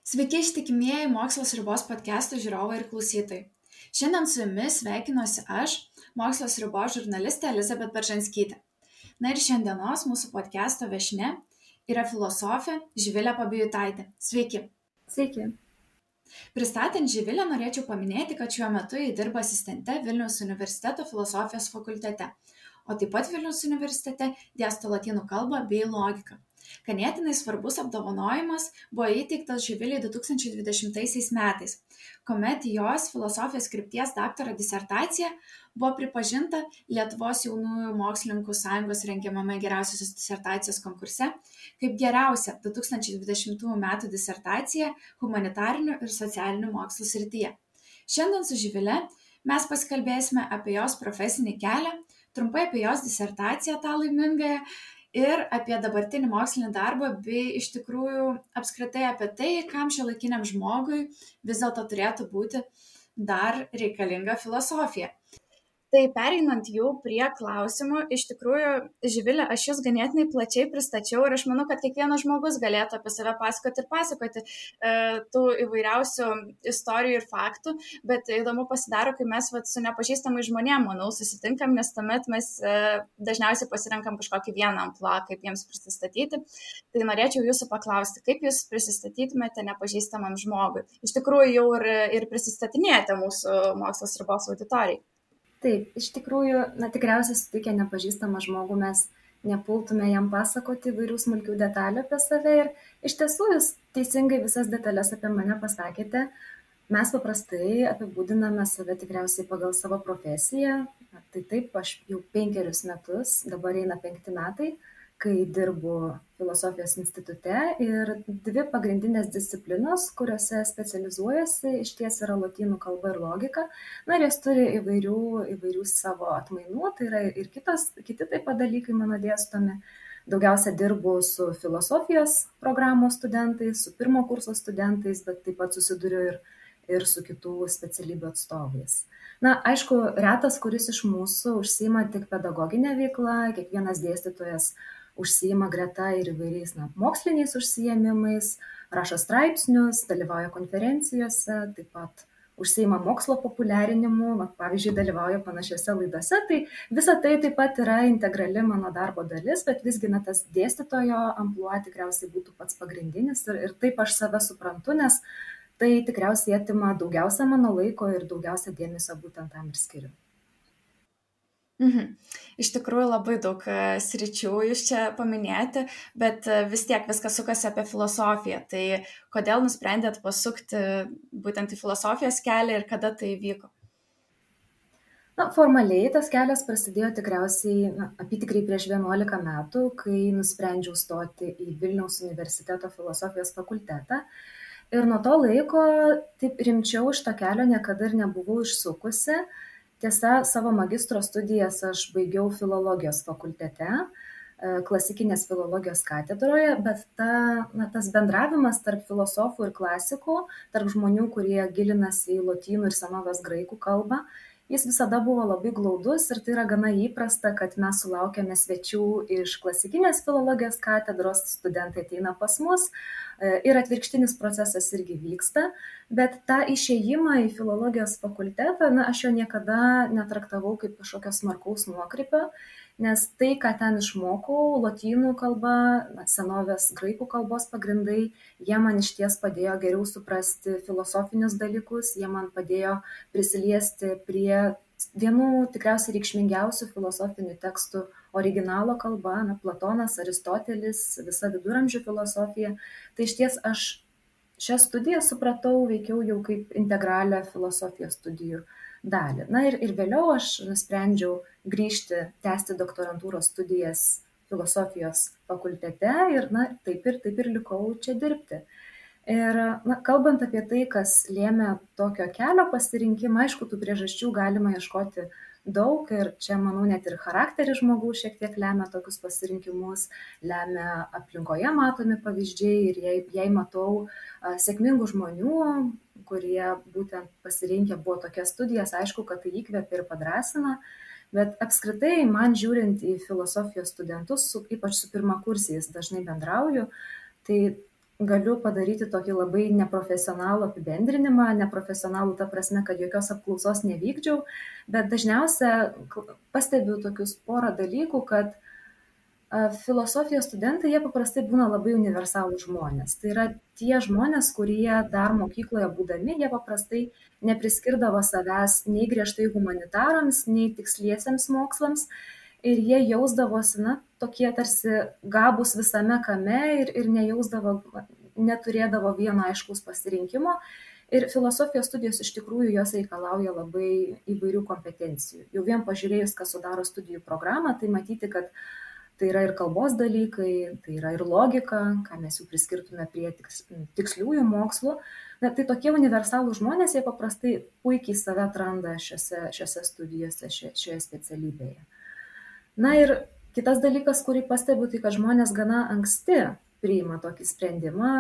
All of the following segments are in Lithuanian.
Sveiki ištikimieji Mokslo Sriubos podcast'o žiūrovai ir klausytojai. Šiandien su jumis sveikinuosi aš, Mokslo Sriubos žurnalistė Elizabet Beržanskytė. Na ir šiandienos mūsų podcast'o viešnia yra filosofė Živilė Pabijutaitė. Sveiki. Sveiki. Pristatant Živilę norėčiau paminėti, kad šiuo metu ji dirba asistente Vilniaus universiteto filosofijos fakultete, o taip pat Vilniaus universitete dėsto lotynų kalbą bei logiką. Ganėtinai svarbus apdovanojimas buvo įteiktas Živilei 2020 metais, kuomet jos filosofijos krypties daktaro disertacija buvo pripažinta Lietuvos jaunųjų mokslininkų sąjungos rengiamame geriausiosios disertacijos konkurse kaip geriausia 2020 metų disertacija humanitarinių ir socialinių mokslų srityje. Šiandien su Živile mes pasikalbėsime apie jos profesinį kelią, trumpai apie jos disertaciją tą laimingąją, ir apie dabartinį mokslinį darbą, bei iš tikrųjų apskritai apie tai, kam šiuolaikiniam žmogui vis dėlto turėtų būti dar reikalinga filosofija. Tai pereinant jau prie klausimų, iš tikrųjų, Živilė, aš jūs ganėtinai plačiai pristačiau ir aš manau, kad kiekvienas žmogus galėtų apie save pasakoti tų įvairiausių istorijų ir faktų, bet įdomu pasidaro, kai mes su nepažįstamai žmonėm, manau, susitinkam, nes tuomet mes dažniausiai pasirenkam kažkokį vieną amplua, kaip jiems prisistatyti. Tai norėčiau jūsų paklausti, kaip jūs prisistatytumėte nepažįstamam žmogui. Iš tikrųjų jau ir prisistatinėjate mūsų Mokslo Sriubos auditorijai. Taip, iš tikrųjų, tikriausiai sutikę nepažįstamą žmogų mes nepultume jam pasakoti įvairių smulkių detalių apie save ir iš tiesų jūs teisingai visas detalės apie mane pasakėte. Mes paprastai apibūdiname save tikriausiai pagal savo profesiją. Tai taip, aš jau 5 metus, dabar eina 5 metai, kai dirbu filosofijos institute ir 2 pagrindinės disciplinos, kuriuose specializuojasi, išties yra lotynų kalba ir logika. Ir jas turi įvairių savo atmainų, tai yra ir kiti taip pat dalykai mano dėstomi. Daugiausia dirbu su filosofijos programos studentais, su pirmo kurso studentais, bet taip pat susiduriu ir su kitų specialybių atstovais. Aišku, retas, kuris iš mūsų užsiima tik pedagoginę veiklą, kiekvienas dėstytojas užsiima greta ir įvairiais moksliniais užsiėmimais, rašo straipsnius, dalyvauja konferencijose, taip pat užsiima mokslo populiarinimu, pavyzdžiui, dalyvauja panašiose laidose. Tai visa tai taip pat yra integrali mano darbo dalis, bet visgi tas dėstytojo amplua tikriausiai būtų pats pagrindinis ir taip aš save suprantu, nes tai tikriausiai atima daugiausia mano laiko ir daugiausia dėmesio būtent tam ir skiriu. Iš tikrųjų labai daug sričių jūs čia paminėjote, bet vis tiek viskas sukasi apie filosofiją. Tai kodėl nusprendėt pasukti būtent į filosofijos kelią ir kada tai įvyko? Formaliai tas kelias prasidėjo tikriausiai apytikriai prieš 11 metų, kai nusprendžiau stoti į Vilniaus universiteto filosofijos fakultetą. Ir nuo to laiko taip rimčiau šito kelio niekada ir nebuvau išsukusi. Tiesa, savo magistro studijas aš baigiau filologijos fakultete, klasikinės filologijos katedroje, bet tas bendravimas tarp filosofų ir klasikų, tarp žmonių, kurie gilinasi į lotynų ir senovės graikų kalbą, jis visada buvo labai glaudus ir tai yra gana įprasta, kad mes sulaukiame svečių iš klasikinės filologijos katedros, studentai ateina pas mus ir atvirkštinis procesas irgi vyksta, bet tą išėjimą į filologijos fakultetą, aš jo niekada netraktavau kaip kažkokio smarkaus nuokrypio, nes tai, ką ten išmokau, lotynų kalba, senovės graikų kalbos pagrindai, jie man išties padėjo geriau suprasti filosofinius dalykus, jie man padėjo prisiliesti prie vienų tikriausiai reikšmingiausių filosofinių tekstų originalo kalba, Platonas, Aristotelis, visa viduramžių filosofija. Tai išties aš šią studiją supratau veikiau jau kaip integralią filosofijos studijų dalį. Ir vėliau aš nusprendžiau grįžti, tęsti doktorantūros studijas filosofijos fakultete ir taip ir likau čia dirbti. Ir kalbant apie tai, kas lėmė tokio kelio pasirinkimą, aišku, tų priežasčių galima ieškoti daug ir čia, manau, net ir charakteris žmogaus šiek tiek lemia tokius pasirinkimus, lemia aplinkoje matomi pavyzdžiai ir jei matau sėkmingų žmonių, kurie būtent pasirinkę buvo tokias studijas, aišku, kad tai įkvepia ir padrąsina. Bet apskritai, man žiūrint į filosofijos studentus, ypač su pirmakursiais dažnai bendrauju, tai galiu padaryti tokį labai neprofesionalų apibendrinimą, neprofesionalų ta prasme, kad jokios apklausos nevykdžiau, bet dažniausia pastebiu tokius porą dalykų, kad filosofijos studentai, jie paprastai būna labai universalūs žmonės. Tai yra tie žmonės, kurie dar mokykloje būdami, jie paprastai nepriskirdavo savęs nei griežtai humanitarams, nei tiksliesiems mokslams. Ir jie jausdavosi, tokie tarsi gabūs visame kame ir neturėdavo vieno aiškaus pasirinkimo. Ir filosofijos studijos iš tikrųjų jos reikalauja labai įvairių kompetencijų. Jau vien pažiūrėjus, kas sudaro studijų programą, tai matyti, kad tai yra ir kalbos dalykai, tai yra ir logika, ką mes jau priskirtume prie tiksliųjų mokslų. Tai tokie universalūs žmonės, jie paprastai puikiai save atranda šiose studijose, šioje specialybėje. Ir kitas dalykas, kurį pastebiu, tai kad žmonės gana anksti priima tokį sprendimą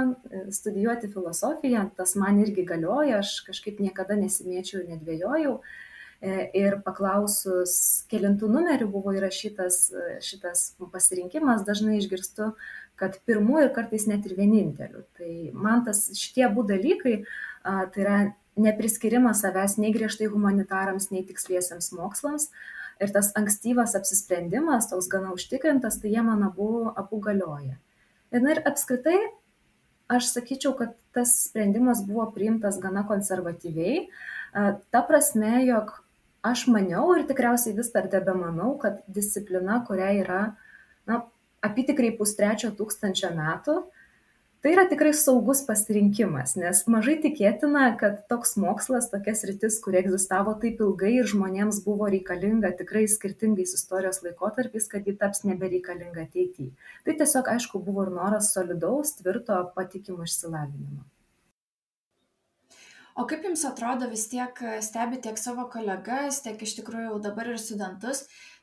studijuoti filosofiją. Tas man irgi galioja, aš kažkaip niekada nesimėčiau ir nedvėjojau. Ir paklausus, kelintų numerių buvo įrašytas šitas pasirinkimas, dažnai išgirstu, kad pirmų ir kartais net ir vienintelių. Tai man šitie abu dalykai, tai yra nepriskirimas savęs nei griežtai humanitarams, nei tiksliesiems mokslams, ir tas ankstyvas apsisprendimas, toks gana užtikrintas, tai jie man abu galioja. Ir apskritai, aš sakyčiau, kad tas sprendimas buvo priimtas gana konservatyviai, ta prasme, jog aš maniau ir tikriausiai vis dar tebemanau, kad disciplina, kuria yra apytikriai 2,5 metų, tai yra tikrai saugus pasirinkimas, nes mažai tikėtina, kad toks mokslas, tokia sritis, kuri egzistavo taip ilgai ir žmonėms buvo reikalinga tikrai skirtingais istorijos laikotarpiais, kad ji taps nebereikalinga ateityje. Tai tiesiog, aišku, buvo ir noras solidaus, tvirto, patikimo išsilavinimo. O kaip jums atrodo, vis tiek stebi tiek savo kolegas, tiek iš tikrųjų dabar ir studentus,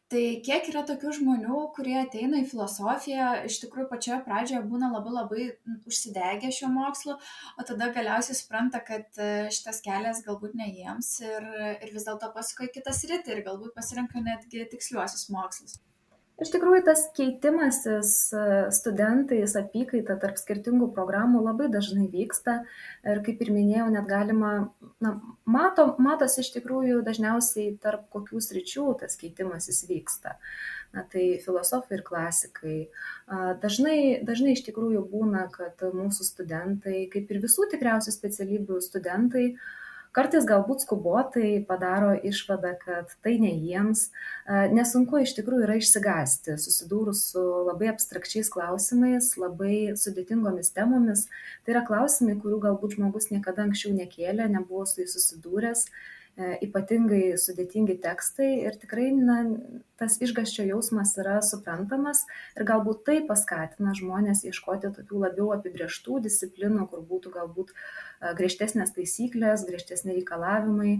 tai kiek yra tokių žmonių, kurie ateina į filosofiją, iš tikrųjų pačioje pradžioje būna labai užsidegę šio mokslu, o tada galiausiai supranta, kad šitas kelias galbūt ne jiems ir vis dėlto pasuka į kitą sritį ir galbūt pasirenka netgi tiksliuosius mokslus. Iš tikrųjų, tas keitimasis studentais apykaita tarp skirtingų programų labai dažnai vyksta ir, kaip ir minėjau, net galima, matosi iš tikrųjų dažniausiai tarp kokių sričių tas keitimasis vyksta. Tai filosofai ir klasikai. Dažnai iš tikrųjų būna, kad mūsų studentai, kaip ir visų tikriausių specialybių studentai, kartais galbūt skubotai padaro išvadą, kad tai ne jiems. Nesunku iš tikrųjų yra išsigąsti, susidūrus su labai abstrakčiais klausimais, labai sudėtingomis temomis. Tai yra klausimai, kurių galbūt žmogus niekada anksčiau nekėlė, nebuvo su jais susidūręs, ypatingai sudėtingi tekstai ir tikrai tas išgąsčio jausmas yra suprantamas ir galbūt tai paskatina žmonės ieškoti tokių labiau apibrėžtų disciplinų, kur būtų galbūt griežtesnės taisyklės, griežtesni reikalavimai.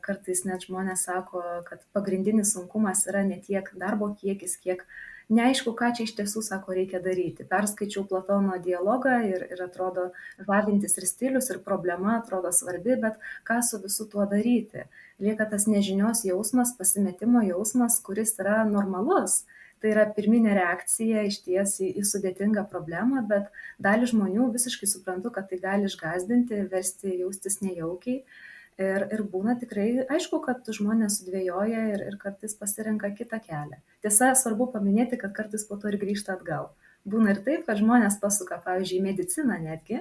Kartais net žmonės sako, kad pagrindinis sunkumas yra ne tiek darbo kiekis, kiek neaišku, ką čia iš tiesų, sako, reikia daryti. Perskaičiau Platono dialogą ir atrodo žavintis ir stilius, ir problema atrodo svarbi, bet ką su visu tuo daryti? Lieka tas nežinios jausmas, pasimetimo jausmas, kuris yra normalus. Tai yra pirminė reakcija išties į sudėtingą problemą, bet dalį žmonių visiškai suprantu, kad tai gali išgąsdinti, versti jaustis nejaukiai. Ir būna tikrai aišku, kad žmonės sudvėjoja ir kartais pasirenka kitą kelią. Tiesa, svarbu paminėti, kad kartais po to ir grįžta atgal. Būna ir taip, kad žmonės pasuka, pavyzdžiui, mediciną netgi,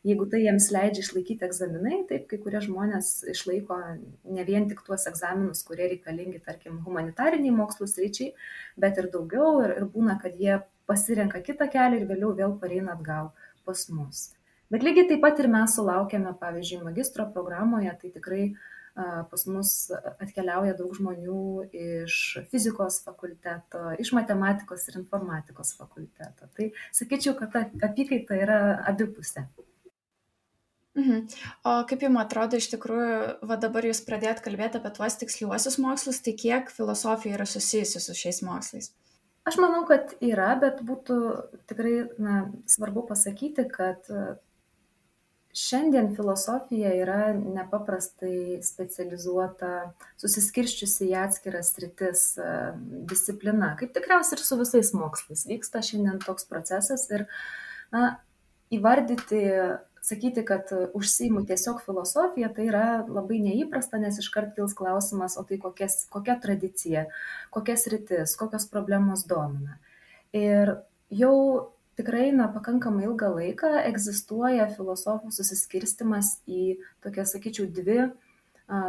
jeigu tai jiems leidžia išlaikyti egzaminai, taip kai kurie žmonės išlaiko ne vien tik tuos egzaminus, kurie reikalingi, tarkim, humanitariniai mokslų sričiai, bet ir daugiau ir būna, kad jie pasirenka kitą kelią ir vėliau vėl pareina atgal pas mus. Bet lygiai taip pat ir mes sulaukėme, pavyzdžiui, magistro programoje, tai tikrai pas mus atkeliauja daug žmonių iš fizikos fakulteto, iš matematikos ir informatikos fakulteto. Tai sakyčiau, kad ta apykaita yra abipusė. O kaip jums atrodo, iš tikrųjų, dabar jūs pradėjot kalbėti apie tuos tiksliuosius mokslus, tai kiek filosofija yra susijusi su šiais mokslais? Aš manau, kad yra, bet būtų tikrai svarbu pasakyti, kad Šiandien filosofija yra nepaprastai specializuota, susiskirsčiusi į atskiras sritis, disciplina, kaip tikriausiai ir su visais mokslais. Vyksta šiandien toks procesas ir na, įvardyti, sakyti, kad užsiimu tiesiog filosofiją, tai yra labai neįprasta, nes iškart kils klausimas, o tai kokia tradicija, kokias rytis, kokios problemos domina. Ir jau tikrai pakankamai ilgą laiką egzistuoja filosofų susiskirstimas į tokias, sakyčiau, dvi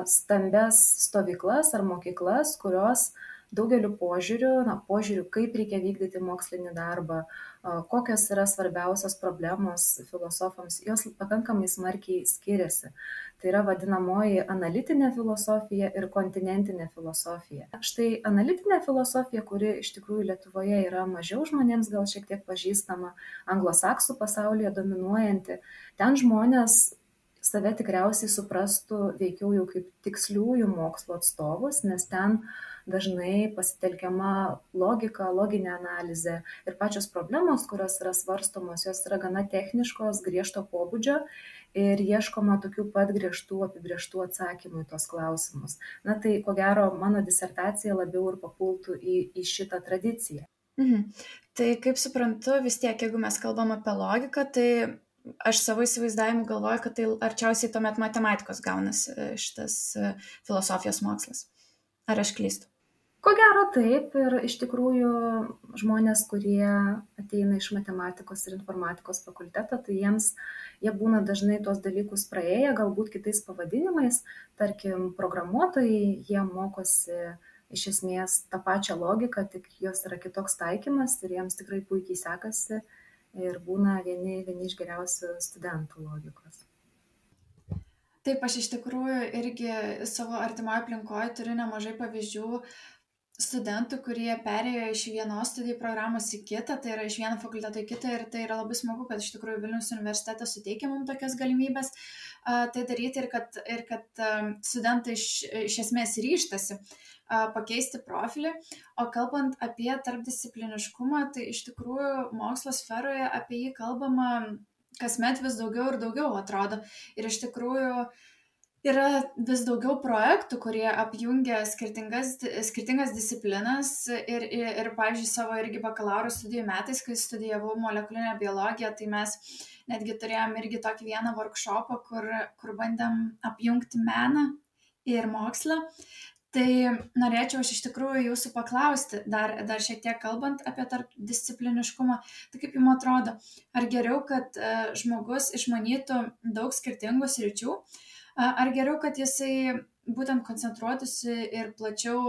stambias stovyklas ar mokyklas, kurios daugeliu požiūrių, kaip reikia vykdyti mokslinį darbą, kokios yra svarbiausios problemos filosofams, jos pakankamai smarkiai skiriasi. Tai yra vadinamoji analitinė filosofija ir kontinentinė filosofija. Štai analitinė filosofija, kuri iš tikrųjų Lietuvoje yra mažiau žmonėms gal šiek tiek pažįstama, anglosaksų pasaulyje dominuojanti, ten žmonės save tikriausiai suprastų veikiau jau kaip tiksliųjų mokslo atstovus, nes ten dažnai pasitelkiama logika, loginė analizė ir pačios problemos, kurios yra svarstomos, jos yra gana techniškos, griežto pobūdžio ir ieškoma tokių pat griežtų apibrėžtų atsakymų į tos klausimus. Na tai, ko gero, mano disertacija labiau ir papultų į šitą tradiciją. Tai kaip suprantu, vis tiek, jeigu mes kalbam apie logiką, tai aš savo įsivaizdavimu galvoju, kad tai arčiausiai tuomet matematikos gaunasi šitas filosofijos mokslas. Ar aš klystu? Ko gero taip, ir iš tikrųjų žmonės, kurie ateina iš matematikos ir informatikos fakulteto, tai jie būna dažnai tuos dalykus praėję, galbūt kitais pavadinimais, tarkim, programuotojai, jie mokosi iš esmės tą pačią logiką, tik jos yra kitoks taikymas ir jiems tikrai puikiai sekasi ir būna vieni iš geriausių studentų logikos. Taip, aš iš tikrųjų irgi savo artimoje aplinkoje turiu nemažai pavyzdžių studentų, kurie perėjo iš vienos studijų programos į kitą, tai yra iš vieno fakulteto į kitą, ir tai yra labai smagu, kad iš tikrųjų Vilniaus universitetas suteikia mums tokias galimybės tai daryti, ir kad studentai iš esmės ryžtasi pakeisti profilį. O kalbant apie tarpdiscipliniškumą, tai iš tikrųjų mokslo sferoje apie jį kalbama kasmet vis daugiau ir daugiau, atrodo. Ir iš tikrųjų yra vis daugiau projektų, kurie apjungia skirtingas disciplinas ir pavyzdžiui, savo irgi bakalauro studijų metais, kai studijavau molekulinę biologiją, tai mes netgi turėjom irgi tokį vieną workshopą, kur bandėm apjungti meną ir mokslą. Tai norėčiau aš iš tikrųjų jūsų paklausti, dar šiek tiek kalbant apie tarpdiscipliniškumą, tai kaip jums atrodo, ar geriau, kad žmogus išmanytų daug skirtingų sričių, ar geriau, kad jisai būtent koncentruotųsi ir plačiau,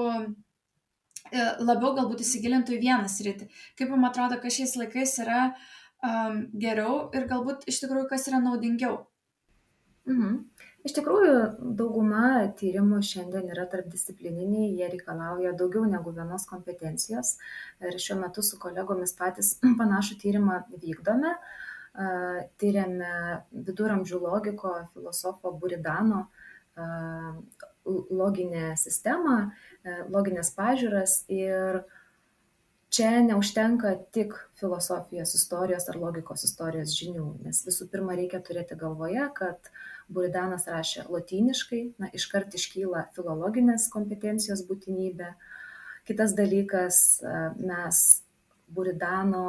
labiau galbūt įsigilintų į vieną sritį? Kaip jums atrodo, kas šiais laikais yra geriau ir galbūt iš tikrųjų kas yra naudingiau? Iš tikrųjų, dauguma tyrimų šiandien yra tarpdisciplininiai, jie reikalauja daugiau negu vienos kompetencijos ir šiuo metu su kolegomis patys panašų tyrimą vykdome. Tyrėme viduramžių logiko filosofo Buridano loginę sistemą, loginės pažiūras, ir čia neužtenka tik filosofijos istorijos ar logikos istorijos žinių, nes visų pirma reikia turėti galvoje, kad Buridanas rašė lotyniškai, iškart iškyla filologinės kompetencijos būtinybė. Kitas dalykas, mes Buridano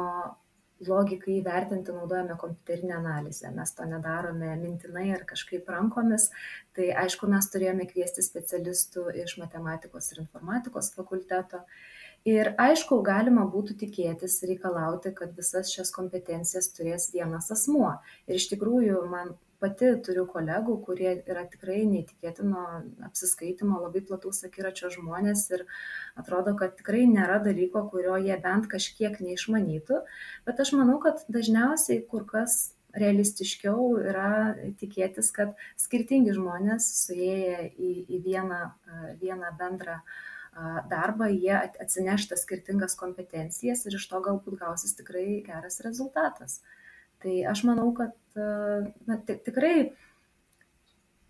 logikai įvertinti naudojame kompiuterinę analizę. Mes to nedarome mintinai ar kažkaip rankomis. Tai aišku, mes turėjome kviesti specialistų iš matematikos ir informatikos fakulteto. Ir aišku, galima būtų tikėtis, reikalauti, kad visas šias kompetencijas turės vienas asmuo. Ir iš tikrųjų, man pati turiu kolegų, kurie yra tikrai neįtikėtino apsiskaitimo, labai plataus akiračio žmonės ir atrodo, kad tikrai nėra dalyko, kurio jie bent kažkiek neišmanytų. Bet aš manau, kad dažniausiai kur kas realistiškiau yra tikėtis, kad skirtingi žmonės suėję į vieną bendrą darbą, jie atsineš tas skirtingas kompetencijas ir iš to galbūt gausis tikrai geras rezultatas. Tai aš manau, kad tikrai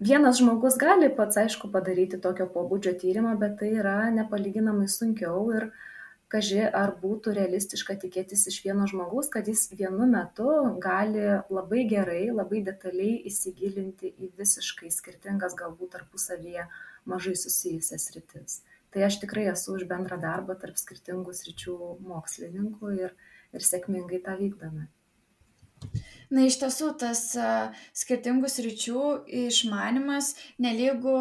vienas žmogus gali pats, aišku, padaryti tokio pobūdžio tyrimą, bet tai yra nepalyginamai sunkiau ir kaži ar būtų realistiška tikėtis iš vieno žmogaus, kad jis vienu metu gali labai gerai, labai detaliai įsigilinti į visiškai skirtingas, galbūt tarpusavyje mažai susijusias sritis. Tai aš tikrai esu už bendrą darbą tarp skirtingų sričių mokslininkų ir sėkmingai tą vykdome. Na, iš tiesų, tas skirtingų sričių išmanimas nelygu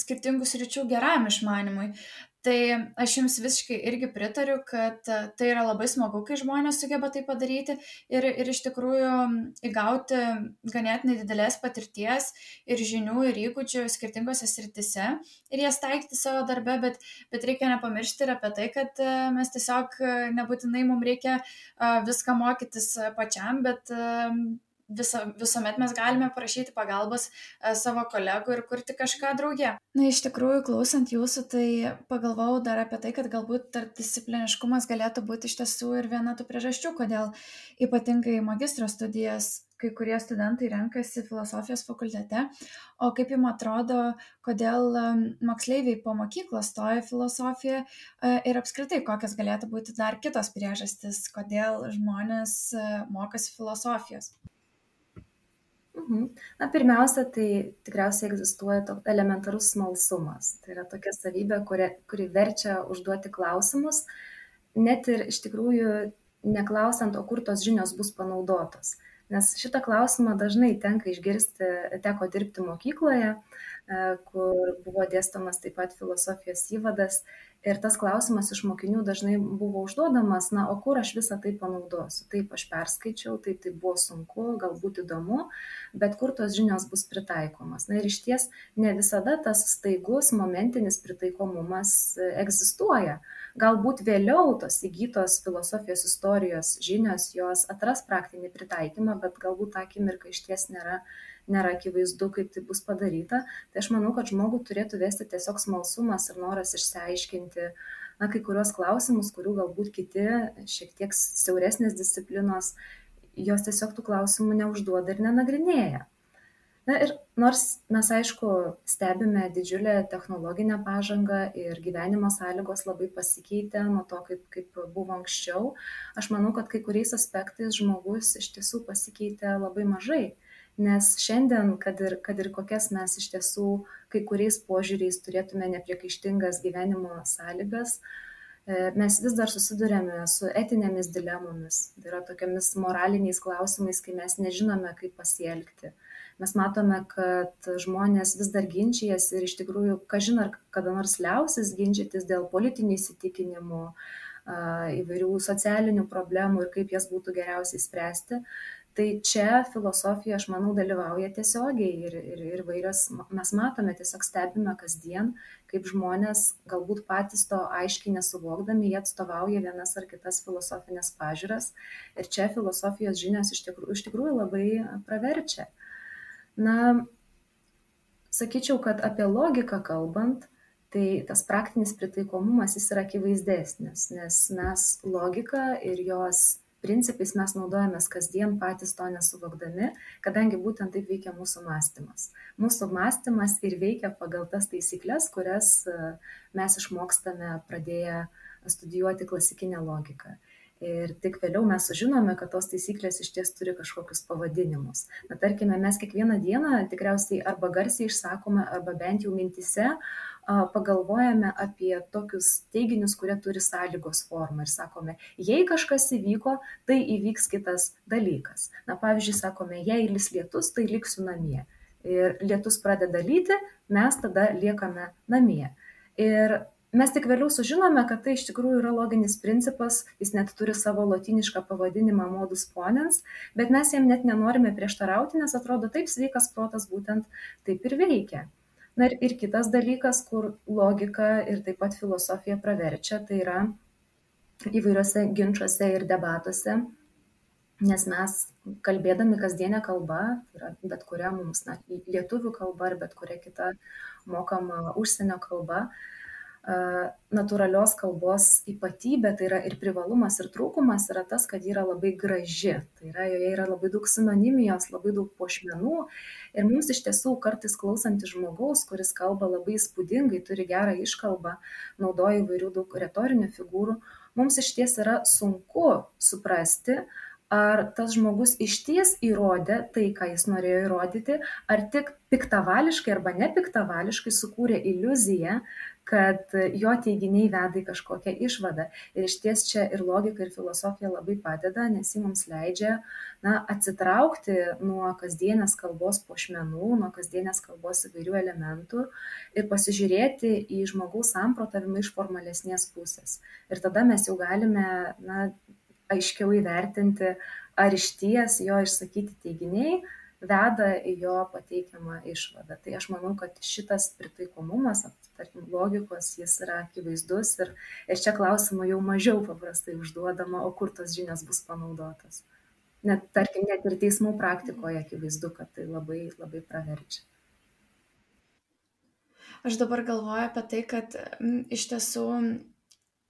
skirtingų sričių geram išmanimui. Tai aš jums visiškai irgi pritariu, kad tai yra labai smagu, kai žmonės sugeba tai padaryti ir iš tikrųjų įgauti ganėtinai didelės patirties ir žinių ir įgūdžių skirtingose sritise ir jas taikyti savo darbe, bet reikia nepamiršti ir apie tai, kad mes tiesiog nebūtinai mums reikia viską mokytis pačiam, bet visuomet mes galime prašyti pagalbos savo kolegų ir kurti kažką drauge. Na, iš tikrųjų, klausant jūsų, tai pagalvojau dar apie tai, kad galbūt tarpdiscipliniškumas galėtų būti iš tiesų ir viena tų priežasčių, kodėl ypatingai magistro studijas kai kurie studentai renkasi filosofijos fakultete, o kaip jums atrodo, kodėl moksleiviai po mokyklos stoja filosofiją ir apskritai kokios galėtų būti dar kitos priežastys, kodėl žmonės mokosi filosofijos? Na, pirmiausia, tai tikriausiai egzistuoja toks elementarus smalsumas. Tai yra tokia savybė, kuri verčia užduoti klausimus, net ir iš tikrųjų neklausiant, o kur tos žinios bus panaudotos. Nes šitą klausimą dažnai teko dirbti mokykloje, kur buvo dėstomas taip pat filosofijos įvadas. Ir tas klausimas iš mokinių dažnai buvo užduodamas, na, o kur aš visą tai panaudosiu? Taip, aš perskaičiau, taip, tai buvo sunku, galbūt įdomu, bet kur tos žinios bus pritaikomas. Na ir iš ties ne visada tas staigus momentinis pritaikomumas egzistuoja. Galbūt vėliau tos įgytos filosofijos istorijos žinios, jos atras praktinį pritaikymą, bet galbūt tą akimirką išties nėra akivaizdu, kaip tai bus padaryta. Tai aš manau, kad žmogų turėtų vesti tiesiog smalsumas ir noras išsiaiškinti kai kurios klausimus, kurių galbūt kiti šiek tiek siauresnės disciplinos, jos tiesiog tų klausimų neužduoda ir nenagrinėja. Na ir nors mes, aišku, stebime didžiulę technologinę pažangą ir gyvenimo sąlygos labai pasikeitė nuo to, kaip buvo anksčiau, aš manau, kad kai kuriais aspektais žmogus iš tiesų pasikeitė labai mažai. Nes šiandien, kad ir kokias mes iš tiesų kai kuriais požiūriais turėtume nepriekaištingas gyvenimo sąlygas, mes vis dar susidurėme su etinėmis dilemomis, tai yra tokiamis moraliniais klausimais, kai mes nežinome, kaip pasielgti. Mes matome, kad žmonės vis dar ginčijasi ir iš tikrųjų, kažin ar kada nors liausis ginčytis dėl politinių įsitikinimų, įvairių socialinių problemų ir kaip jas būtų geriausiai spręsti. Tai čia filosofija, aš manau, dalyvauja tiesiogiai ir vairios, mes matome, tiesiog stebime kasdien, kaip žmonės galbūt patys to aiškiai nesuvokdami, jie atstovauja vienas ar kitas filosofinės pažiūras ir čia filosofijos žinios iš tikrųjų labai praverčia. Na, sakyčiau, kad apie logiką kalbant, tai tas praktinis pritaikomumas jis yra akivaizdesnis, nes mes logiką ir jos principais mes naudojamės kasdien patys to nesuvokdami, kadangi būtent taip veikia mūsų mąstymas. Mūsų mąstymas ir veikia pagal tas taisyklės, kurias mes išmokstame pradėję studijuoti klasikinę logiką. Ir tik vėliau mes sužinome, kad tos taisyklės iš ties turi kažkokius pavadinimus. Na, tarkime, mes kiekvieną dieną tikriausiai arba garsiai išsakome, arba bent jau mintise pagalvojame apie tokius teiginius, kurie turi sąlygos formą ir sakome, jei kažkas įvyko, tai įvyks kitas dalykas. Na, pavyzdžiui, sakome, jei lis lietus, tai liksiu namie. Ir lietus pradeda lyti, mes tada liekame namie. Ir mes tik vėliau sužinome, kad tai iš tikrųjų yra loginis principas, jis net turi savo lotynišką pavadinimą modus ponens, bet mes jam net nenorime prieštarauti, nes atrodo taip sveikas protas būtent taip ir veikia. Na ir kitas dalykas, kur logika ir taip pat filosofija praverčia, tai yra įvairiuose ginčiuose ir debatuose, nes mes kalbėdami kasdienę kalbą, tai yra bet kuria mums lietuvių kalba ar bet kuria kita mokama užsienio kalba, natūralios kalbos ypatybė, tai yra ir privalumas, ir trūkumas yra tas, kad ji yra labai graži. Tai yra, joje yra labai daug sinonimijos, labai daug puošmenų. Ir mums iš tiesų kartais klausantis žmogaus, kuris kalba labai įspūdingai, turi gerą iškalbą, naudoja įvairių daug retorinių figūrų, mums išties yra sunku suprasti, ar tas žmogus išties įrodė tai, ką jis norėjo įrodyti, ar tik piktavališkai arba nepiktavališkai sukūrė iliuziją, kad jo teiginiai veda į kažkokią išvadą. Ir išties čia ir logika, ir filosofija labai padeda, nes ji mums leidžia atsitraukti nuo kasdienės kalbos puošmenų, nuo kasdienės kalbos įvairių elementų ir pasižiūrėti į žmogaus samprotavimą iš formalesnės pusės. Ir tada mes jau galime aiškiau įvertinti, ar išties jo išsakyti teiginiai veda į jo pateikiamą išvadą. Tai aš manau, kad šitas pritaikomumas, tarkim, logikos, jis yra akivaizdus ir čia klausimų jau mažiau paprastai užduodama, o kur tos žinios bus panaudotos. Tarkim, net ir teismų praktikoje akivaizdu, kad tai labai, labai praverčia. Aš dabar galvoju apie tai, kad iš tiesų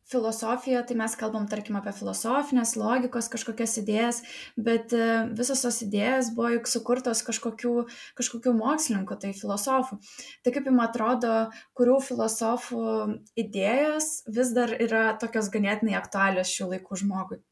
filosofija, tai mes kalbam, tarkim, apie filosofinės logikos kažkokias idėjas, bet visos tos idėjas buvo juk sukurtos kažkokių mokslininkų, tai filosofų. Tai kaip jums atrodo, kurių filosofų idėjos vis dar yra tokios ganėtinai aktualios šių laikų žmogui?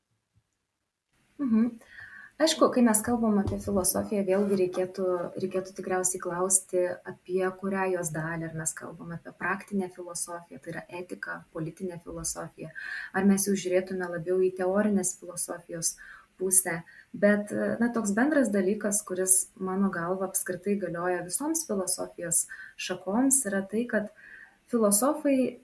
Aišku, kai mes kalbam apie filosofiją, vėlgi reikėtų tikriausiai klausti, apie kurią jos dalį, ar mes kalbam apie praktinę filosofiją, tai yra etika, politinė filosofija, ar mes jau žiūrėtume labiau į teorinės filosofijos pusę. Bet toks bendras dalykas, kuris mano galva apskritai galioja visoms filosofijos šakoms, yra tai, kad filosofai,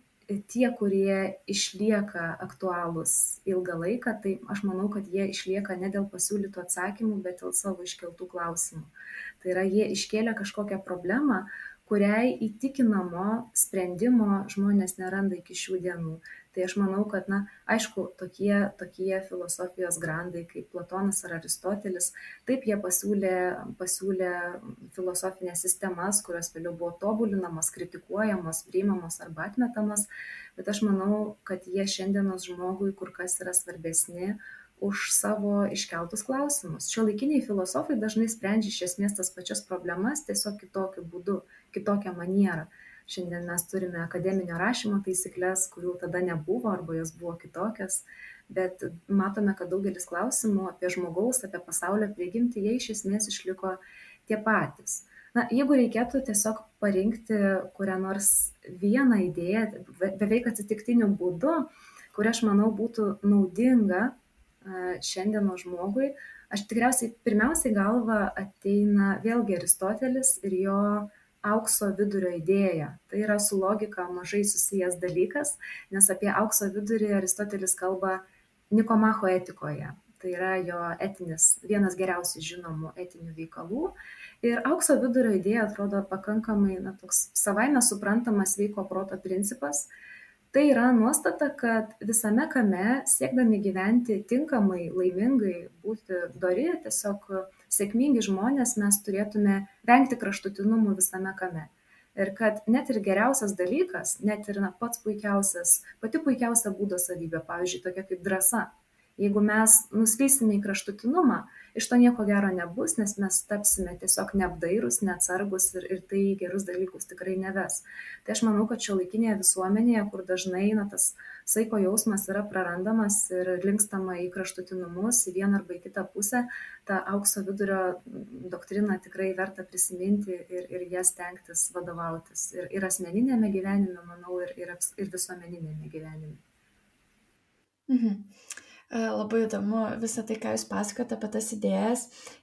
tie, kurie išlieka aktualūs ilgą laiką, tai aš manau, kad jie išlieka ne dėl pasiūlytų atsakymų, bet dėl savo iškeltų klausimų. Tai yra, jie iškėlė kažkokią problemą, kuriai įtikinamo sprendimo žmonės neranda iki šių dienų. Tai aš manau, kad, aišku, tokie filosofijos grandai kaip Platonas ar Aristotelis, taip jie pasiūlė filosofinės sistemas, kurios vėliau buvo tobulinamos, kritikuojamos, priimamos arba atmetamos, bet aš manau, kad jie šiandienos žmogui kur kas yra svarbesni už savo iškeltus klausimus. Šiuolaikiniai filosofai dažnai sprendžia iš esmės tas pačias problemas, tiesiog kitokiu būdu, kitokią manierą. Šiandien mes turime akademinio rašymo taisyklės, kurių tada nebuvo arba jos buvo kitokios, bet matome, kad daugelis klausimų apie žmogaus, apie pasaulio prigimtį, jie iš esmės išliko tie patys. Jeigu reikėtų tiesiog parinkti kurią nors vieną idėją, beveik atsitiktiniu būdu, kuri aš manau būtų naudinga šiandieno žmogui, aš tikriausiai pirmiausiai galva ateina vėlgi Aristotelis ir jo aukso vidurio idėja. Tai yra su logika mažai susijęs dalykas, nes apie aukso vidurį Aristotelis kalba Nikomacho etikoje. Tai yra jo vienas geriausiai žinomų etinių veikalų. Ir aukso vidurio idėja atrodo pakankamai toks savaime suprantamas sveiko proto principas. Tai yra nuostata, kad visame kame, siekdami gyventi tinkamai, laimingai, būti dori, tiesiog sėkmingi žmonės, mes turėtume vengti kraštutinumų visame kame. Ir kad net ir geriausias dalykas, net ir pati puikiausia būdo savybė, pavyzdžiui, tokia kaip drąsa. Jeigu mes nuslysime į kraštutinumą, iš to nieko gero nebus, nes mes tapsime tiesiog neapdairūs, neatsargus ir tai gerus dalykus tikrai neves. Tai aš manau, kad šiuolaikinėje visuomenėje, kur dažnai tas saiko jausmas yra prarandamas ir linkstama į kraštutinumus, į vieną arba į kitą pusę, tą aukso vidurio doktriną tikrai verta prisiminti ir jas stengtis vadovautis. Ir asmeninėme gyvenime, manau, ir visuomeninėme gyvenime. Labai įdomu visą tai, ką jūs pasakote apie tas idėjas,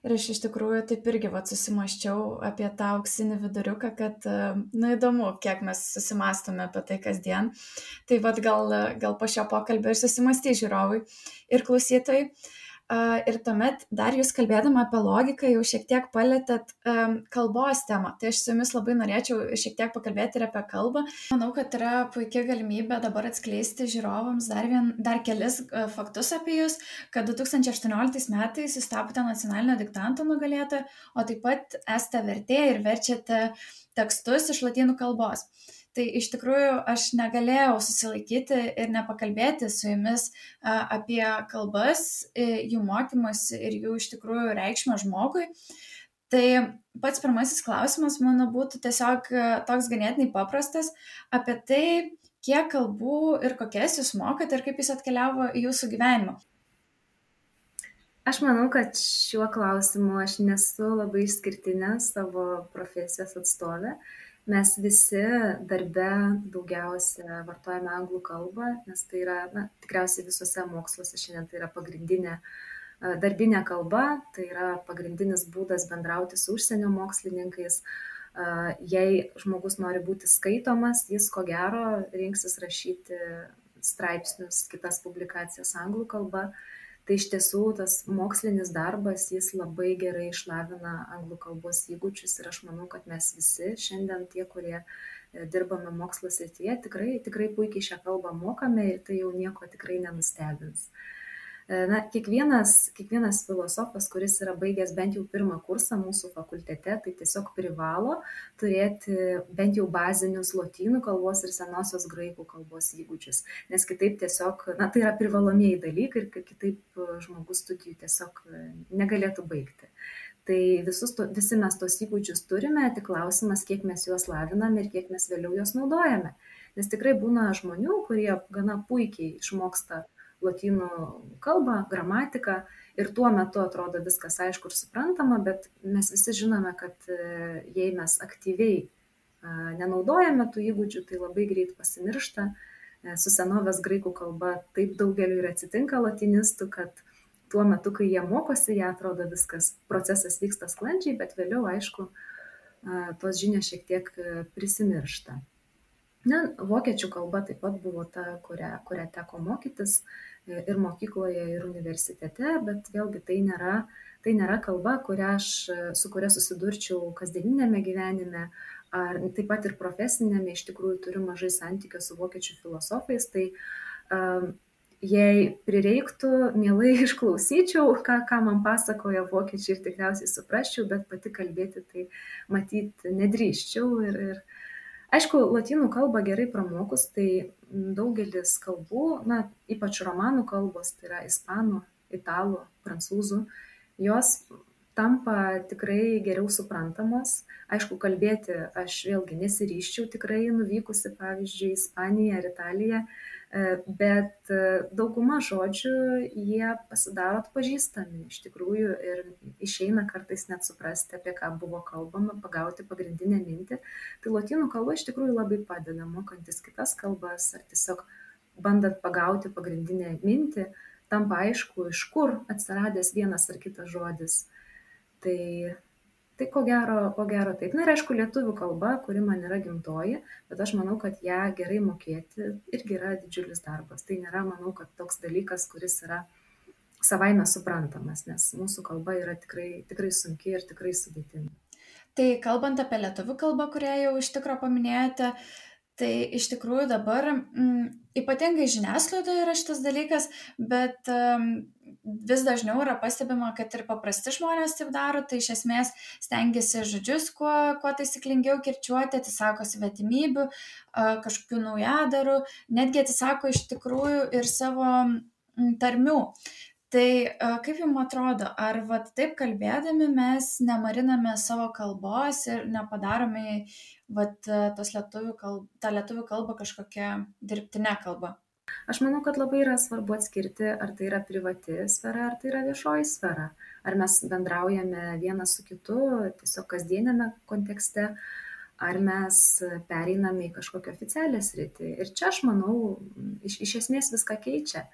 ir aš iš tikrųjų taip irgi susimaščiau apie tą auksinį viduriuką, kad įdomu, kiek mes susimastome apie tai kasdien. Tai gal po šio pokalbio ir susimastys žiūrovai ir klausytojai. Ir tuomet dar jūs kalbėdama apie logiką jau šiek tiek palėtėt kalbos temą. Tai aš su jumis labai norėčiau šiek tiek pakalbėti ir apie kalbą. Manau, kad yra puikia galimybė dabar atskleisti žiūrovams dar kelis faktus apie jūs, kad 2018 metais jūs tapote nacionalinio diktanto nugalėtoja, o taip pat esate vertėja ir verčiate tekstus iš lotynų kalbos. Tai iš tikrųjų aš negalėjau susilaikyti ir nepakalbėti su jumis apie kalbas, jų mokymus ir jų iš tikrųjų reikšmę žmogui. Tai pats pirmasis klausimas mano būtų tiesiog toks ganėtinai paprastas apie tai, kiek kalbų ir kokias jūs mokate ir kaip jis atkeliavo į jūsų gyvenimą? Aš manau, kad šiuo klausimu aš nesu labai išskirtinė savo profesijos atstovė. Mes visi darbe daugiausia vartojame anglų kalbą, nes tai yra, tikriausiai visose moksluose šiandien tai yra pagrindinė darbinė kalba, tai yra pagrindinis būdas bendrauti su užsienio mokslininkais. Jei žmogus nori būti skaitomas, jis ko gero rinksis rašyti straipsnius, kitas publikacijas anglų kalba. Tai iš tiesų tas mokslinis darbas, jis labai gerai išlavina anglų kalbos įgūdžius ir aš manau, kad mes visi šiandien tie, kurie dirbame mokslo srityje, tikrai puikiai šią kalbą mokame ir tai jau nieko tikrai nenustebins. Kiekvienas filosofas, kuris yra baigęs bent jau pirmą kursą mūsų fakultete, tai tiesiog privalo turėti bent jau bazinius lotynų kalbos ir senosios graikų kalbos įgūdžius, nes kitaip tiesiog, tai yra privalomieji dalykai ir kitaip žmogus studijų tiesiog negalėtų baigti. Tai visi mes tos įgūdžius turime, tik klausimas, kiek mes juos laviname ir kiek mes vėliau juos naudojame. Nes tikrai būna žmonių, kurie gana puikiai išmoksta lotynų kalbą, gramatiką ir tuo metu atrodo viskas aišku ir suprantama, bet mes visi žinome, kad jei mes aktyviai nenaudojame tų įgūdžių, tai labai greit pasimiršta. Su senovės graikų kalba taip daugeliu ir atsitinka lotynistų, kad tuo metu, kai jie mokosi, jie atrodo viskas, procesas vyksta sklandžiai, bet vėliau, aišku, tos žinios šiek tiek prisimiršta. Vokiečių kalba taip pat buvo ta, kurią teko mokytis ir mokykloje, ir universitete, bet vėlgi tai nėra kalba, su kuria susidurčiau kasdieninėme gyvenime, ar taip pat ir profesinėme, iš tikrųjų turiu mažai santykio su vokiečių filosofais, tai jei prireiktų, mielai išklausyčiau, ką man pasakoja vokiečiai ir tikriausiai suprasčiau, bet pati kalbėti tai matyti nedrįsčiau ir aišku, lotynų kalbą gerai pramokus, tai daugelis kalbų, ypač romanų kalbos, tai yra ispanų, italų, prancūzų, jos tampa tikrai geriau suprantamos. Aišku, kalbėti aš vėlgi nesiryščiau tikrai nuvykusi, pavyzdžiui, Ispaniją ar Italiją, bet dauguma žodžių jie pasidaro atpažįstami iš tikrųjų ir išeina kartais net suprasti, apie ką buvo kalbama, pagauti pagrindinę mintį. Tai lotynų kalba iš tikrųjų labai padeda mokantis kitas kalbas ar tiesiog bandant pagauti pagrindinę mintį, tampa aišku, iš kur atsiradęs vienas ar kitas žodis. Tai ko gero taip. Ir aišku, lietuvių kalba, kuri man yra gimtoji, bet aš manau, kad ją gerai mokėti irgi yra didžiulis darbas. Tai nėra, manau, kad toks dalykas, kuris yra savaime suprantamas, nes mūsų kalba yra tikrai sunki ir tikrai sudėtinga. Tai kalbant apie lietuvių kalbą, kurią jau iš tikro paminėjote, tai iš tikrųjų dabar ypatingai žiniasklaidoje yra šitas dalykas, bet vis dažniau yra pastebima, kad ir paprasti žmonės taip daro, tai iš esmės stengiasi žodžius kuo taisyklingiau kirčiuoti, atsisako svetimybių, kažkokių naujadarų, netgi atsisako iš tikrųjų ir savo tarmių. Tai kaip jums atrodo, ar taip kalbėdami mes nemariname savo kalbos ir nepadarome tą lietuvių kalbą kažkokią dirbtinę kalbą? Aš manau, kad labai yra svarbu atskirti, ar tai yra privati sfera, ar tai yra viešoji sfera. Ar mes bendraujame vienas su kitu tiesiog kasdienėme kontekste, ar mes pereiname į kažkokią oficialią sritį. Ir čia, aš manau, iš esmės viską keičia.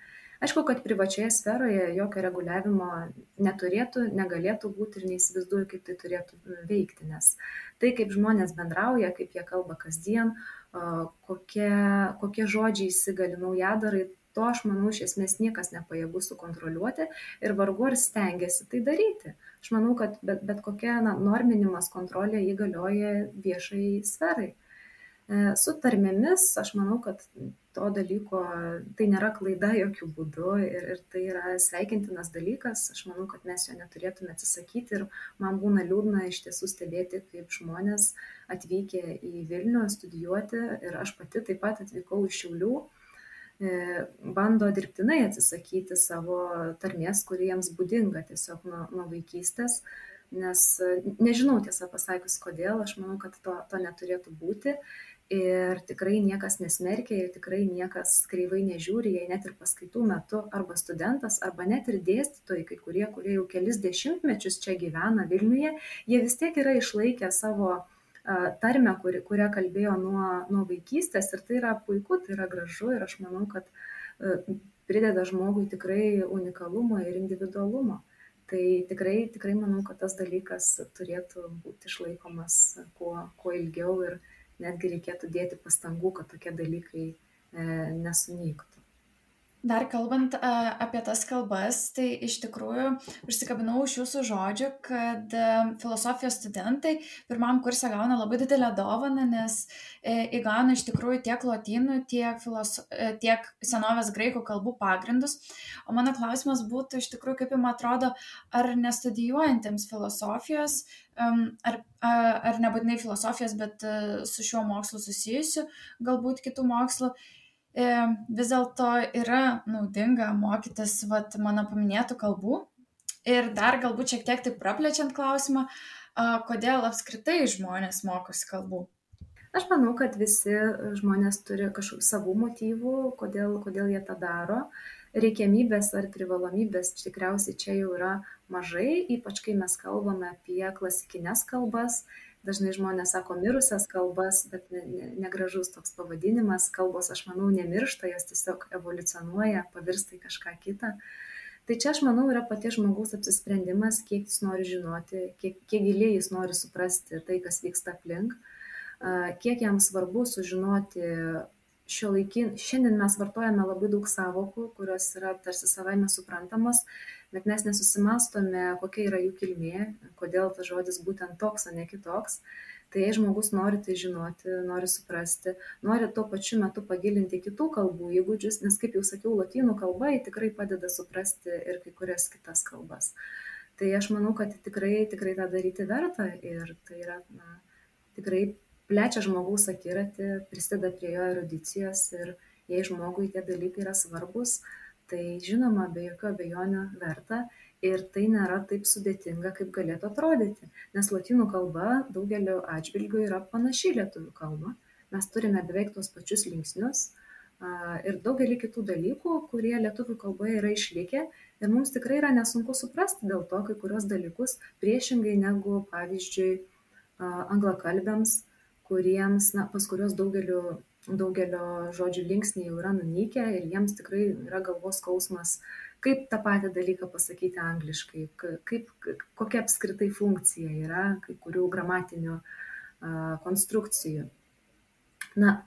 Aišku, kad privačioje sferoje jokio reguliavimo neturėtų, negalėtų būti ir neįsivaizduoju, kaip tai turėtų veikti, nes tai, kaip žmonės bendrauja, kaip jie kalba kasdien, kokie žodžiai įsigali naujadarai, to, aš manau, iš esmės niekas nepajėgus sukontroliuoti ir vargu ar stengiasi tai daryti. Aš manau, kad bet kokia norminimas, kontrolė įgalioja viešai sferai. Su tarmėmis, aš manau, kad to dalyko, tai nėra klaida jokių būdų ir tai yra sveikintinas dalykas. Aš manau, kad mes jo neturėtume atsisakyti ir man būna liūdna iš tiesų stebėti, kaip žmonės atvykę į Vilnių studijuoti ir aš pati taip pat atvykau iš Šiaulių, bando dirbtinai atsisakyti savo tarmės, kuri jiems būdinga tiesiog nuo vaikystės, nes nežinau tiesą pasakius kodėl, aš manau, kad to neturėtų būti. Ir tikrai niekas nesmerkia ir tikrai niekas kreivai nežiūri, jei net ir paskaitų metu arba studentas, arba net ir dėstytojai, kai kurie jau kelis dešimtmečius čia gyvena Vilniuje, jie vis tiek yra išlaikę savo tarmę, kurią kalbėjo nuo vaikystės, ir tai yra puiku, tai yra gražu, ir aš manau, kad prideda žmogui tikrai unikalumo ir individualumo. Tai tikrai manau, kad tas dalykas turėtų būti išlaikomas kuo ilgiau ir netgi reikėtų dėti pastangų, kad tokie dalykai nesunyktų. Dar kalbant apie tas kalbas, tai iš tikrųjų užsikabinau iš jūsų žodžių, kad filosofijos studentai pirmam kurse gauna labai didelę dovaną, nes įgauna iš tikrųjų tiek lotynų, tiek senovės graikų kalbų pagrindus. O mano klausimas būtų iš tikrųjų, kaip jums atrodo, ar nestudijuojantiems filosofijos, ar nebūtinai filosofijos, bet su šiuo mokslu susijusiu, galbūt kitų mokslų, vis dėlto yra naudinga mokytis mano paminėtų kalbų. Ir dar galbūt šiek tiek taip praplečiant klausimą, kodėl apskritai žmonės mokosi kalbų? Aš manau, kad visi žmonės turi kažkokių savų motyvų, kodėl jie tą daro. Reikiamybės ar privalomybės tikriausiai čia jau yra mažai, ypač kai mes kalbame apie klasikinės kalbas. Dažnai žmonės sako mirusias kalbas, bet negražus toks pavadinimas. Kalbos, aš manau, nemiršta, jos tiesiog evoliucionuoja, pavirsta į kažką kitą. Tai čia, aš manau, yra paties žmogaus apsisprendimas, kiek jis nori žinoti, kiek giliai jis nori suprasti tai, kas vyksta aplink, kiek jam svarbu sužinoti šiandien mes vartojame labai daug sąvokų, kurios yra tarsi savaime suprantamos, bet mes nesusimastome, kokia yra jų kilmė, kodėl tas žodis būtent toks, o ne kitoks. Tai jei žmogus nori tai žinoti, nori suprasti, nori tuo pačiu metu pagilinti kitų kalbų įgūdžius, nes, kaip jau sakiau, lotynų kalba tikrai padeda suprasti ir kai kurias kitas kalbas. Tai aš manau, kad tikrai tą daryti verta, ir tai yra tikrai plečia žmogaus akiratį, prisideda prie jo erudicijos, ir jei žmogui tie dalykai yra svarbus, tai žinoma, be jokių abejonių verta, ir tai nėra taip sudėtinga, kaip galėtų atrodyti, nes lotynų kalba daugeliu atžvilgių yra panaši lietuvių kalba. Mes turime beveik tos pačius linksnius ir daugelį kitų dalykų, kurie lietuvių kalboje yra išlikę, ir mums tikrai yra nesunku suprasti dėl to kai kurios dalykus, priešingai negu, pavyzdžiui, anglakalbiams, pas kurios daugelio žodžių linksniai jau yra nunykę, ir jiems tikrai yra galvos skausmas, kaip tą patį dalyką pasakyti angliškai, kokia apskritai funkcija yra kai kurių gramatinių konstrukcijų.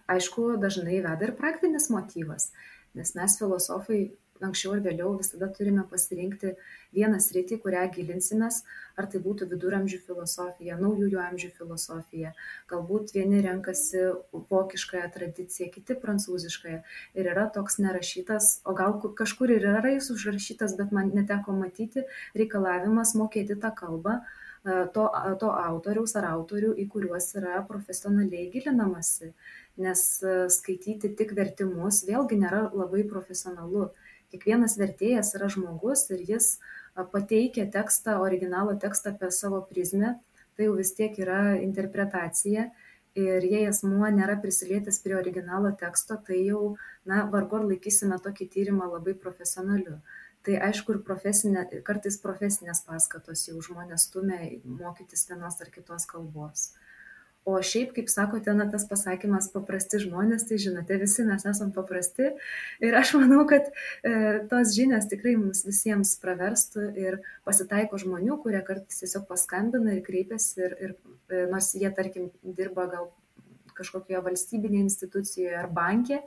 Aišku, dažnai veda ir praktinis motyvas, nes mes filosofai anksčiau ir vėliau visada turime pasirinkti vieną sritį, kurią gilinsimės, ar tai būtų viduramžių filosofija, naujųjų amžių filosofija, galbūt vieni renkasi vokiškąją tradiciją, kiti prancūziškąją, ir yra toks nerašytas, o gal kažkur ir yra jis užrašytas, bet man neteko matyti, reikalavimas mokėti tą kalbą to autoriaus ar autorių, į kuriuos yra profesionaliai gilinamasi, nes skaityti tik vertimus vėlgi nėra labai profesionalu. Kiekvienas vertėjas yra žmogus, ir jis pateikia tekstą, originalo tekstą apie savo prizmę, tai jau vis tiek yra interpretacija, ir jei asmuo nėra prisilietęs prie originalo teksto, tai jau, vargu ar laikysime tokį tyrimą labai profesionaliu. Tai aišku, ir kartais profesinės paskatos jau žmonės stumia mokytis vienos ar kitos kalbos. O šiaip, kaip sakote, tas pasakymas paprasti žmonės, tai žinote, visi mes esam paprasti, ir aš manau, kad tos žinios tikrai mums visiems praverstų, ir pasitaiko žmonių, kurie kartais tiesiog paskambina ir kreipiasi, ir nors jie, tarkim, dirba gal kažkokioje valstybinėje institucijoje ar banke,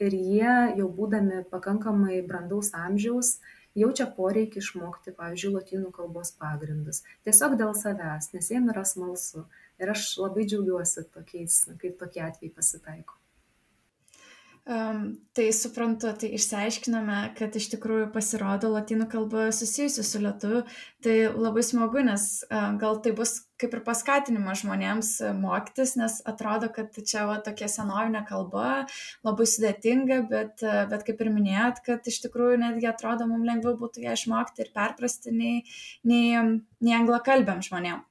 ir jie jau būdami pakankamai brandaus amžiaus jaučia poreikį išmokti, pavyzdžiui, lotynų kalbos pagrindus. Tiesiog dėl savęs, nes jiem yra smalsu. Ir aš labai džiaugiuosi tokiais, kaip tokie atvejai pasitaiko. Tai suprantu, tai išsiaiškiname, kad iš tikrųjų pasirodo lotynų kalba susijusi su lietuviu. Tai labai smagu, nes gal tai bus kaip ir paskatinimas žmonėms mokytis, nes atrodo, kad čia tokia senovinė kalba, labai sudėtinga, bet kaip ir minėjot, kad iš tikrųjų netgi atrodo, mums lengviau būtų ją išmokti ir perprasti nei anglakalbiam žmonėm.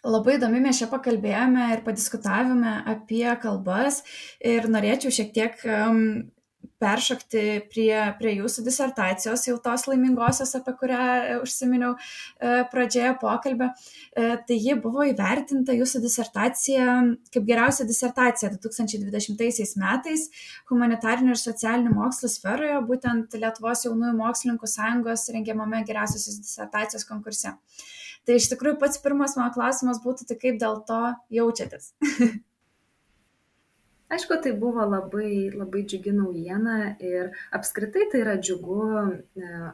Labai įdomi mes čia pakalbėjome ir padiskutavome apie kalbas ir norėčiau šiek tiek peršokti prie jūsų disertacijos, jau tos laimingosios, apie kurią užsiminiau pradžioje pokalbio. Tai ji buvo įvertinta jūsų disertacija kaip geriausia disertacija 2020 metais humanitarinių ir socialinių mokslų sferoje, būtent Lietuvos jaunųjų mokslininkų sąjungos rengiamame geriausiosios disertacijos konkurse. Tai iš tikrųjų pats pirmas mano klausimas būtų, tai kaip dėl to jaučiatės? Aišku, tai buvo labai, labai džiugi naujiena ir apskritai tai yra džiugu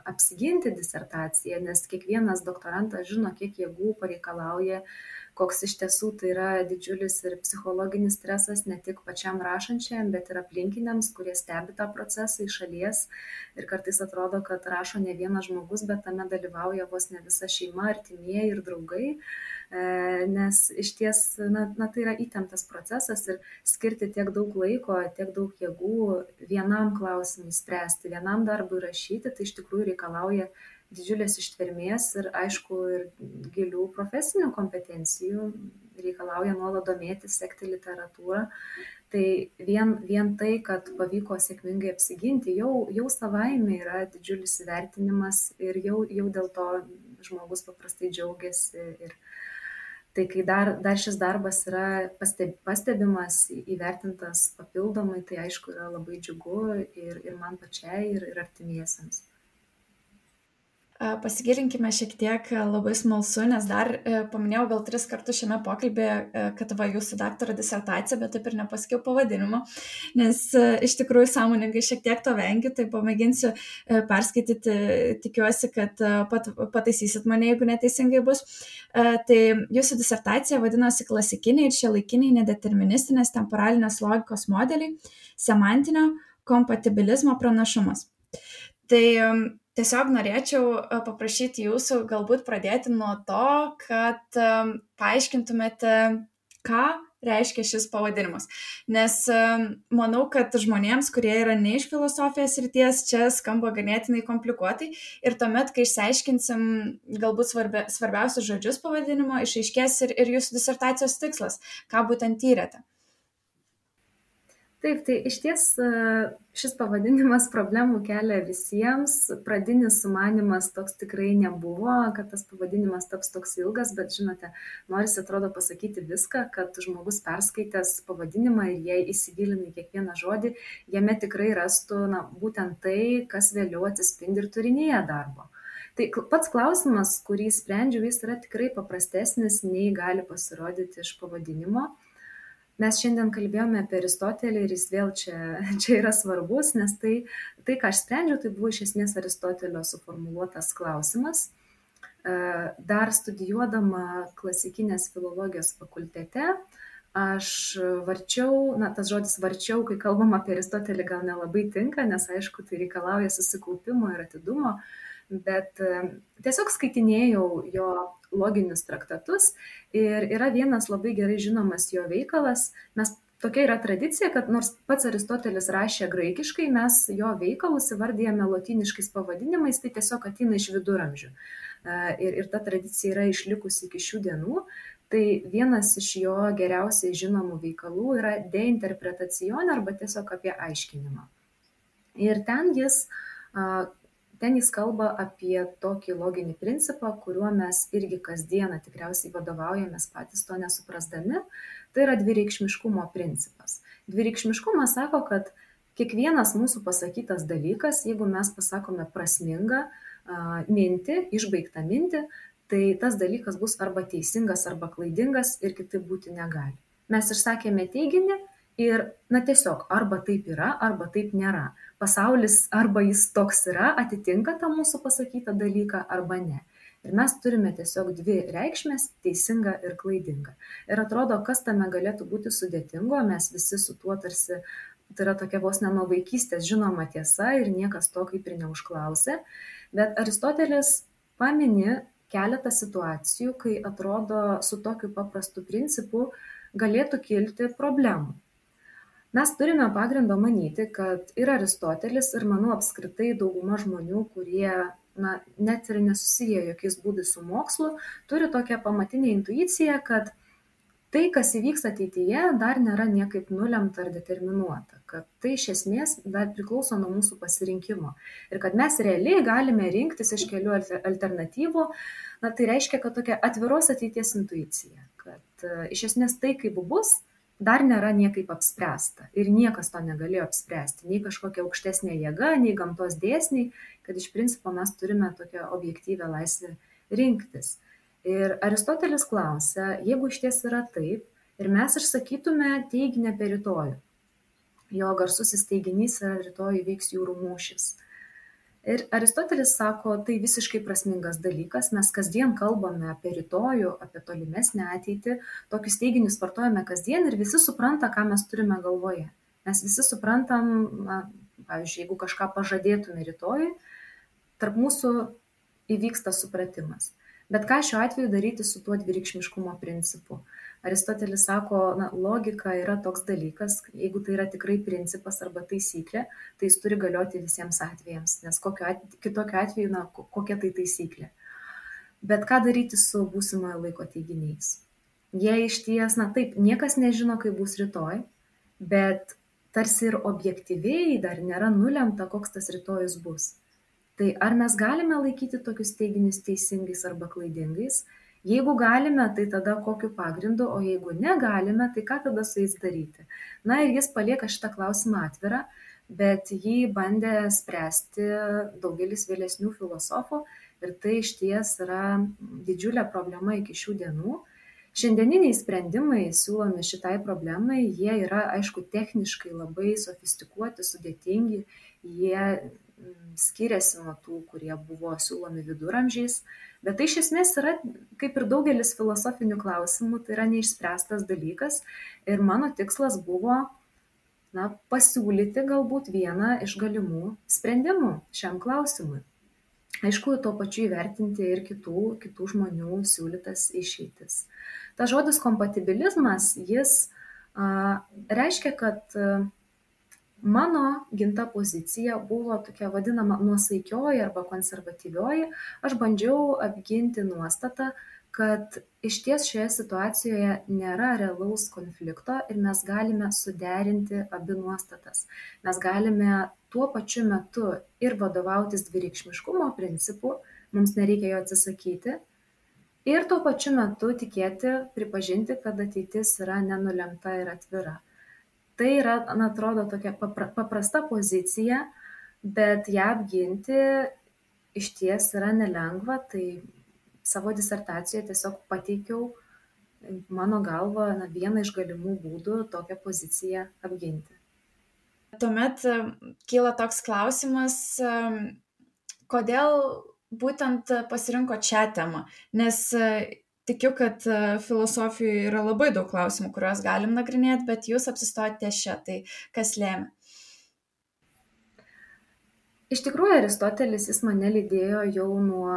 apsiginti disertaciją, nes kiekvienas doktorantas žino, kiek jėgų pareikalauja, koks iš tiesų tai yra didžiulis ir psichologinis stresas ne tik pačiam rašančiam, bet ir aplinkiniams, kurie stebi tą procesą iš šalies. Ir kartais atrodo, kad rašo ne vienas žmogus, bet tame dalyvauja vos ne visa šeima, artimieji ir draugai. Nes iš ties, tai yra įtemptas procesas ir skirti tiek daug laiko, tiek daug jėgų vienam klausimui spręsti, vienam darbui rašyti, tai iš tikrųjų reikalauja didžiulės ištvermės ir aišku ir gilių profesinių kompetencijų, reikalauja nuolat domėtis, sekti literatūrą. Tai vien tai, kad pavyko sėkmingai apsiginti, jau savaime yra didžiulis įvertinimas ir jau dėl to žmogus paprastai džiaugiasi. Ir tai kai dar šis darbas yra pastebimas, įvertintas papildomai, tai aišku yra labai džiugu ir man pačiai, ir artimiesiems. Pasigilinkime šiek tiek, labai smalsu, nes dar paminėjau gal 3 kartus šiame pokalbėje, kad jūsų daktaro disertacija, bet taip ir nepasakiau pavadinimo, nes iš tikrųjų sąmoningai šiek tiek to vengiu, tai pamėginsiu perskaityti, tikiuosi, kad pataisysit mane, jeigu neteisingai bus. Tai jūsų disertacija vadinosi klasikiniai ir šiuolaikiniai nedeterministinės temporalinės logikos modeliai, semantinio kompatibilizmo pranašumas. Tai tiesiog norėčiau paprašyti jūsų galbūt pradėti nuo to, kad paaiškintumėte, ką reiškia šis pavadinimas. Nes manau, kad žmonėms, kurie yra ne iš filosofijos srities, čia skamba ganėtinai komplikuotai ir tuomet, kai išsiaiškinsim galbūt svarbiausius žodžius pavadinimo, išaiškės ir jūsų disertacijos tikslas, ką būtent tyrėte. Taip, tai iš ties šis pavadinimas problemų kelia visiems. Pradinis sumanymas toks tikrai nebuvo, kad tas pavadinimas taps toks ilgas, bet žinote, norisi atrodo pasakyti viską, kad žmogus perskaitęs pavadinimą ir jei įsigilina į kiekvieną žodį, jame tikrai rastų būtent tai, kas vėliau atsispindi ir turinyje darbo. Tai pats klausimas, kurį sprendžiu, jis yra tikrai paprastesnis, nei gali pasirodyti iš pavadinimo. Mes šiandien kalbėjome apie Aristotelį ir jis vėl čia yra svarbus, nes tai, ką aš sprendžiau, tai buvo iš esmės Aristotelio suformuluotas klausimas. Dar studijuodama klasikinės filologijos fakultete, aš varčiau, tas žodis varčiau, kai kalbam apie Aristotelį, gal nelabai tinka, nes aišku, tai reikalauja susikaupimo ir atidumo, bet tiesiog skaitinėjau jo loginius traktatus ir yra vienas labai gerai žinomas jo veikalas. Tokia yra tradicija, kad nors pats Aristotelis rašė graikiškai, mes jo veikalus įvardijame lotyniškais pavadinimais, tai tiesiog ateina iš viduramžių. Ir ta tradicija yra išlikusi iki šių dienų. Tai vienas iš jo geriausiai žinomų veikalų yra De interpretacione arba tiesiog apie aiškinimą. Ir ten jis kalba apie tokį loginį principą, kuriuo mes irgi kasdieną tikriausiai vadovaujamės patys to nesuprasdami. Tai yra dvireikšmiškumo principas. Dvireikšmiškumas sako, kad kiekvienas mūsų pasakytas dalykas, jeigu mes pasakome prasmingą mintį, išbaigtą mintį, tai tas dalykas bus arba teisingas, arba klaidingas ir kitaip būti negali. Mes išsakėme teiginį ir tiesiog arba taip yra, arba taip nėra. Pasaulis arba jis toks yra, atitinka tą mūsų pasakytą dalyką, arba ne. Ir mes turime tiesiog dvi reikšmės - teisinga ir klaidinga. Ir atrodo, kas tame galėtų būti sudėtingo, mes visi su tuo tarsi, tai yra tokia vos ne nuo vaikystės žinoma tiesa ir niekas to kaip ir neužklausė. Bet Aristotelis pamini keletą situacijų, kai atrodo su tokiu paprastu principu galėtų kilti problemų. Mes turime pagrindo manyti, kad ir Aristotelis, ir manau apskritai dauguma žmonių, kurie net ir nesusiję jokiais būdais su mokslu, turi tokią pamatinę intuiciją, kad tai, kas įvyks ateityje, dar nėra niekaip nulemta ar determinuota, kad tai iš esmės dar priklauso nuo mūsų pasirinkimo ir kad mes realiai galime rinktis iš kelių alternatyvų, tai reiškia, kad tokia atviros ateities intuicija, kad iš esmės tai, kaip bus, dar nėra niekaip apspręsta ir niekas to negalėjo apspręsti, nei kažkokia aukštesnė jėga, nei gamtos dėsniai, kad iš principo mes turime tokią objektyvę laisvę rinktis. Ir Aristotelis klausia, jeigu išties yra taip, ir mes išsakytume teiginį apie rytojų, jo garsusis teiginys yra rytoj įvyks jūrų mūšis. Ir Aristotelis sako, tai visiškai prasmingas dalykas, mes kasdien kalbame apie rytojų, apie tolimesnę ateitį, tokius teiginius vartojame kasdien ir visi supranta, ką mes turime galvoje. Mes visi suprantam, pavyzdžiui, jeigu kažką pažadėtume rytojui, tarp mūsų įvyksta supratimas. Bet ką šiuo atveju daryti su tuo dvireikšmiškumo principu? Aristotelis sako, logika yra toks dalykas, jeigu tai yra tikrai principas arba taisyklė, tai jis turi galioti visiems atvejams, nes kitokiu atveju, kokia tai taisyklė. Bet ką daryti su būsimojo laiko teiginiais? Jie iš ties, taip, niekas nežino, kaip bus rytoj, bet tarsi ir objektyviai dar nėra nulemta, koks tas rytojus bus. Tai ar mes galime laikyti tokius teiginius teisingais arba klaidingais? Jeigu galime, tai tada kokiu pagrindu, o jeigu negalime, tai ką tada su jais daryti? Ir jis palieka šitą klausimą atvirą, bet jį bandė spręsti daugelis vėlesnių filosofų ir tai išties yra didžiulė problema iki šių dienų. Šiandieniniai sprendimai siūlomi šitai problemai, jie yra, aišku, techniškai labai sofistikuoti, sudėtingi, jie skiriasi nuo tų, kurie buvo siūlomi viduramžiais, bet tai iš esmės yra, kaip ir daugelis filosofinių klausimų, tai yra neišspręstas dalykas ir mano tikslas buvo pasiūlyti galbūt vieną iš galimų sprendimų šiam klausimui. Aišku, tuo pačiu įvertinti ir kitų žmonių siūlytas išeitis. Tas žodis kompatibilizmas, jis reiškia, kad mano ginta pozicija buvo tokia vadinama nuosaikioji arba konservatyvioji. Aš bandžiau apginti nuostatą, kad iš ties šioje situacijoje nėra realaus konflikto ir mes galime suderinti abi nuostatas. Mes galime tuo pačiu metu ir vadovautis dvireikšmiškumo principu, mums nereikia jo atsisakyti, ir tuo pačiu metu tikėti, pripažinti, kad ateitis yra nenulemta ir atvira. Tai yra, atrodo, tokia paprasta pozicija, bet ją apginti iš ties yra nelengva, tai savo disertacijoje tiesiog pateikiau, mano galva, vieną iš galimų būdų tokią poziciją apginti. Tuomet kyla toks klausimas, kodėl būtent pasirinkot šią temą, nes tikiu, kad filosofijoje yra labai daug klausimų, kuriuos galim nagrinėti, bet jūs apsistojate ties šia, tai kas lėmė? Iš tikrųjų, Aristotelis jis mane lydėjo jau nuo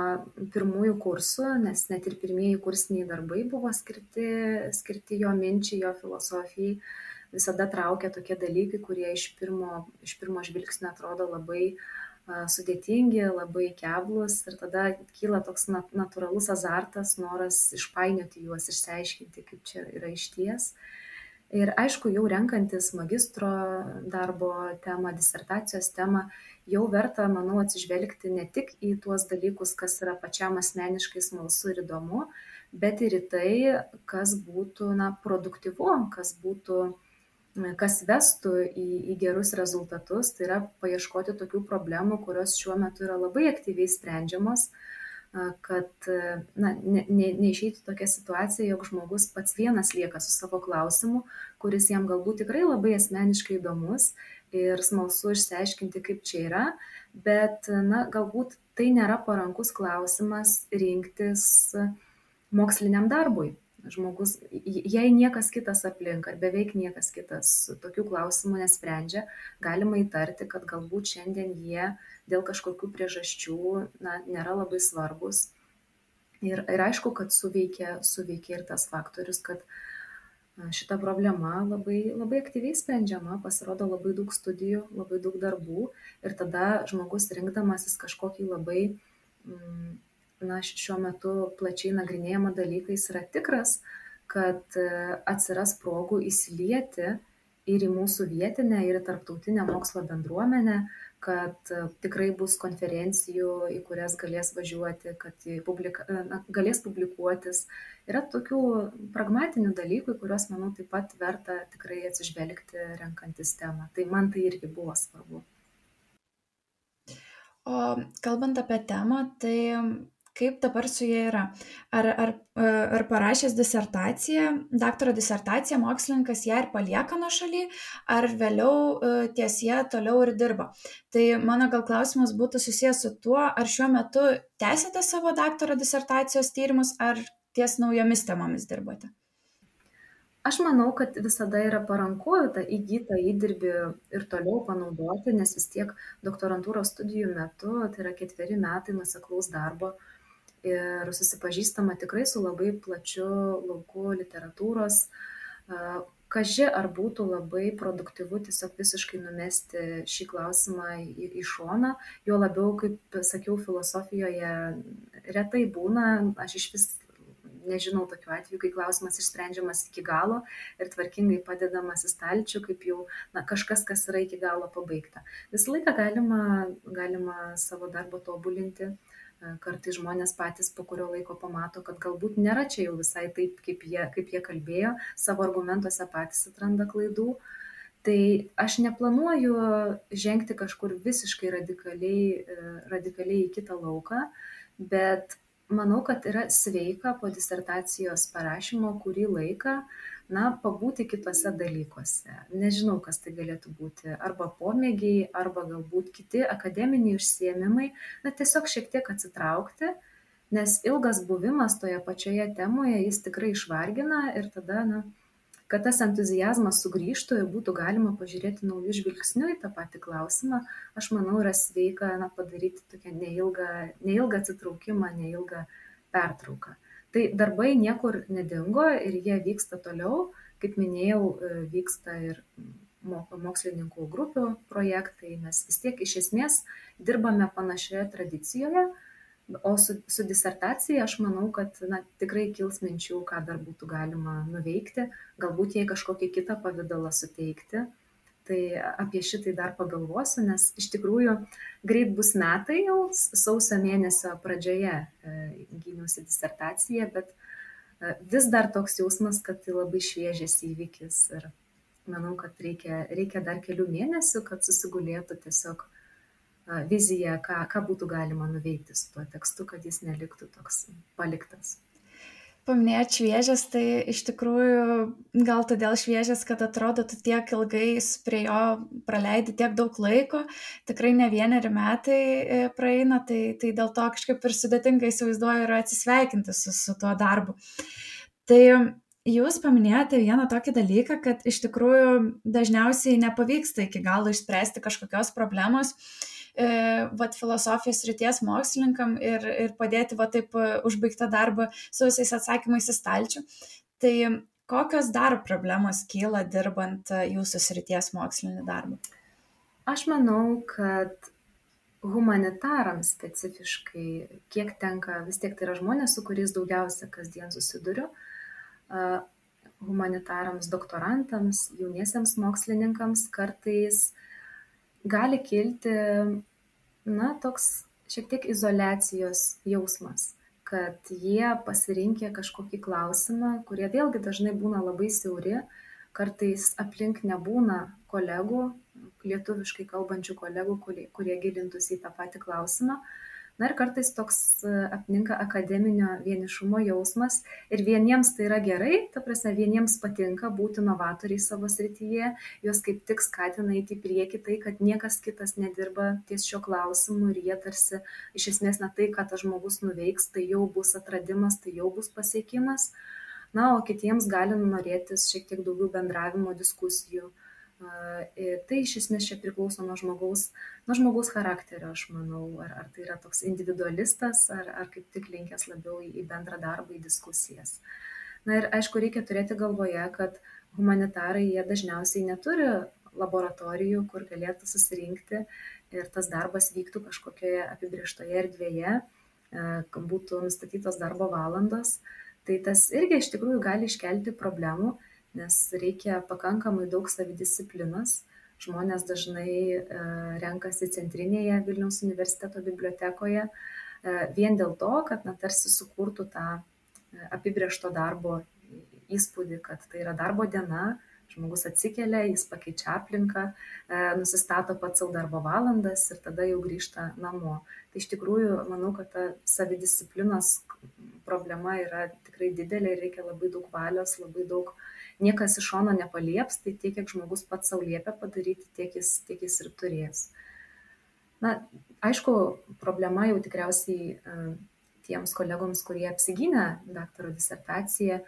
pirmųjų kursų, nes net ir pirmieji kursiniai darbai buvo skirti jo minčiai, jo filosofijai. Visada traukia tokie dalykai, kurie iš pirmo žvilgsnio atrodo labai sudėtingi, labai keblus ir tada kyla toks natūralus azartas, noras išpainioti juos, išsiaiškinti, kaip čia yra išties. Ir aišku, jau renkantis magistro darbo temą, disertacijos temą, jau verta, manau, atsižvelgti ne tik į tuos dalykus, kas yra pačiam asmeniškai smalsu ir įdomu, bet ir į tai, kas būtų produktyvu, kas vestų į gerus rezultatus, tai yra paieškoti tokių problemų, kurios šiuo metu yra labai aktyviai sprendžiamos, kad neišeitų tokia situacija, jog žmogus pats vienas lieka su savo klausimu, kuris jam galbūt tikrai labai asmeniškai įdomus ir smalsu išsiaiškinti, kaip čia yra, bet galbūt tai nėra parankus klausimas rinktis moksliniam darbui. Žmogus, jei niekas kitas aplink, ar beveik niekas kitas tokių klausimų nesprendžia, galima įtarti, kad galbūt šiandien jie dėl kažkokių priežasčių nėra labai svarbus. Ir aišku, kad suveikia ir tas faktorius, kad šita problema labai aktyviai sprendžiama, pasirodo labai daug studijų, labai daug darbų ir tada žmogus rinkdamasis kažkokį labai, šiuo metu plačiai nagrinėjamą dalyką, jis yra tikras, kad atsiras progų įsilieti ir į mūsų vietinę, ir į tarptautinę mokslo bendruomenę, kad tikrai bus konferencijų, į kurias galės važiuoti, kad galės publikuotis. Yra tokių pragmatinių dalykų, į kuriuos, manau, taip pat verta tikrai atsižvelgti renkantis temą. Tai man tai irgi buvo svarbu. O kalbant apie temą, tai kaip dabar su ja yra? Ar parašęs disertaciją, daktaro disertaciją, mokslininkas ją ir palieka nuošaly, ar vėliau ties ją toliau ir dirba? Tai mano gal klausimas būtų susijęs su tuo, ar šiuo metu tęsiate savo daktaro disertacijos tyrimus, ar ties naujomis temomis dirbate? Aš manau, kad visada yra paranku tą įgytą įdirbį ir toliau panaudoti, nes vis tiek doktorantūros studijų metu, tai yra 4 metai nuoseklaus darbo ir susipažįstama tikrai su labai plačiu lauku literatūros. Kaži ar būtų labai produktyvu tiesiog visiškai numesti šį klausimą į šoną, jo labiau, kaip sakiau, filosofijoje retai būna, aš iš vis nežinau tokių atvejų, kai klausimas išsprendžiamas iki galo ir tvarkingai padedamas į stalčių, kaip jau kažkas, kas yra iki galo pabaigta. Visą laiką galima savo darbą tobulinti. Kartais žmonės patys po kurio laiko pamato, kad galbūt nėra čia jau visai taip, kaip jie kalbėjo, savo argumentuose patys atranda klaidų. Tai aš neplanuoju žengti kažkur visiškai radikaliai į kitą lauką, bet manau, kad yra sveika po disertacijos parašymo kurį laiką, pabūti kitose dalykuose. Nežinau, kas tai galėtų būti. Arba pomėgiai, arba galbūt kiti akademiniai užsiėmimai. Tiesiog šiek tiek atsitraukti, nes ilgas buvimas toje pačioje temoje, jis tikrai išvargina ir tada, kad tas entuziazmas sugrįžtų ir būtų galima pažiūrėti naujų žvilgsnių į tą patį klausimą, aš manau, yra sveika padaryti tokią neilgą atsitraukimą, neilgą pertrauką. Tai darbai niekur nedingo ir jie vyksta toliau. Kaip minėjau, vyksta ir mokslininkų grupių projektai. Mes vis tiek iš esmės dirbame panašioje tradicijoje. O su disertacija aš manau, kad tikrai kils minčių, ką dar būtų galima nuveikti, galbūt jai kažkokį kitą pavidalą suteikti. Tai apie šitai dar pagalvosiu, nes iš tikrųjų greit bus metai jau, sausio mėnesio pradžioje gyniausi disertaciją, bet vis dar toks jausmas, kad tai labai šviežias įvykis ir manau, kad reikia dar kelių mėnesių, kad susigulėtų tiesiog viziją, ką būtų galima nuveikti su tuo tekstu, kad jis neliktų toks paliktas. Paminėjot šviežias, tai iš tikrųjų gal todėl šviežias, kad atrodo, tu tiek ilgai prie jo praleidi tiek daug laiko, tikrai ne 1 metai praeina, tai dėl to kažkaip ir sudėtingai įsivaizduoju ir atsisveikinti su tuo darbu. Tai jūs paminėjote vieną tokį dalyką, kad iš tikrųjų dažniausiai nepavyksta iki galo išspręsti kažkokios problemos filosofijos srities mokslininkam ir padėti taip užbaigtą darbą su visais atsakymais į stalčių. Tai kokios dar problemos kyla dirbant jūsų srities mokslinį darbą? Aš manau, kad humanitarams specifiškai, kiek tenka, vis tiek tai yra žmonės, su kuriais daugiausia kasdien susiduriu, humanitarams, doktorantams, jauniesiems mokslininkams kartais gali kilti, toks šiek tiek izoliacijos jausmas, kad jie pasirinkę kažkokį klausimą, kurie vėlgi dažnai būna labai siauri, kartais aplink nebūna kolegų, lietuviškai kalbančių kolegų, kurie gilintųsi į tą patį klausimą. Ir kartais toks apninka akademinio vienišumo jausmas ir vieniems tai yra gerai, ta prasme, vieniems patinka būti novatoriai savo srityje, juos kaip tik skatina eiti į priekį tai, kad niekas kitas nedirba ties šio klausimu ir jie tarsi iš esmės tai, ką tas žmogus nuveiks, tai jau bus atradimas, tai jau bus pasiekimas. O kitiems gali norėtis šiek tiek daugiau bendravimo, diskusijų. Tai iš esmės čia priklauso nuo žmogaus charakterio, aš manau, ar tai yra toks individualistas, ar kaip tik linkęs labiau į bendrą darbą, į diskusijas. Na ir aišku, reikia turėti galvoje, kad humanitarai jie dažniausiai neturi laboratorijų, kur galėtų susirinkti ir tas darbas vyktų kažkokioje apibrieštoje erdvėje, būtų nustatytos darbo valandos. Tai tas irgi iš tikrųjų gali iškelti problemų, nes reikia pakankamai daug savidisciplinos. Žmonės dažnai renkasi centrinėje Vilniaus universiteto bibliotekoje vien dėl to, kad tarsi sukurtų tą apibrėžto darbo įspūdį, kad tai yra darbo diena, žmogus atsikelia, jis pakeičia aplinką, nusistato pats savo darbo valandas ir tada jau grįžta namo. Tai iš tikrųjų, manau, kad ta savidisciplinos problema yra tikrai didelė ir reikia labai daug valios, labai daug, niekas iš šono nepalieps, tai tiek, kiek žmogus pats savo liepia padaryti, tiek jis ir turės. Na, aišku, problema jau tikriausiai tiems kolegoms, kurie apsigynė daktaro disertaciją,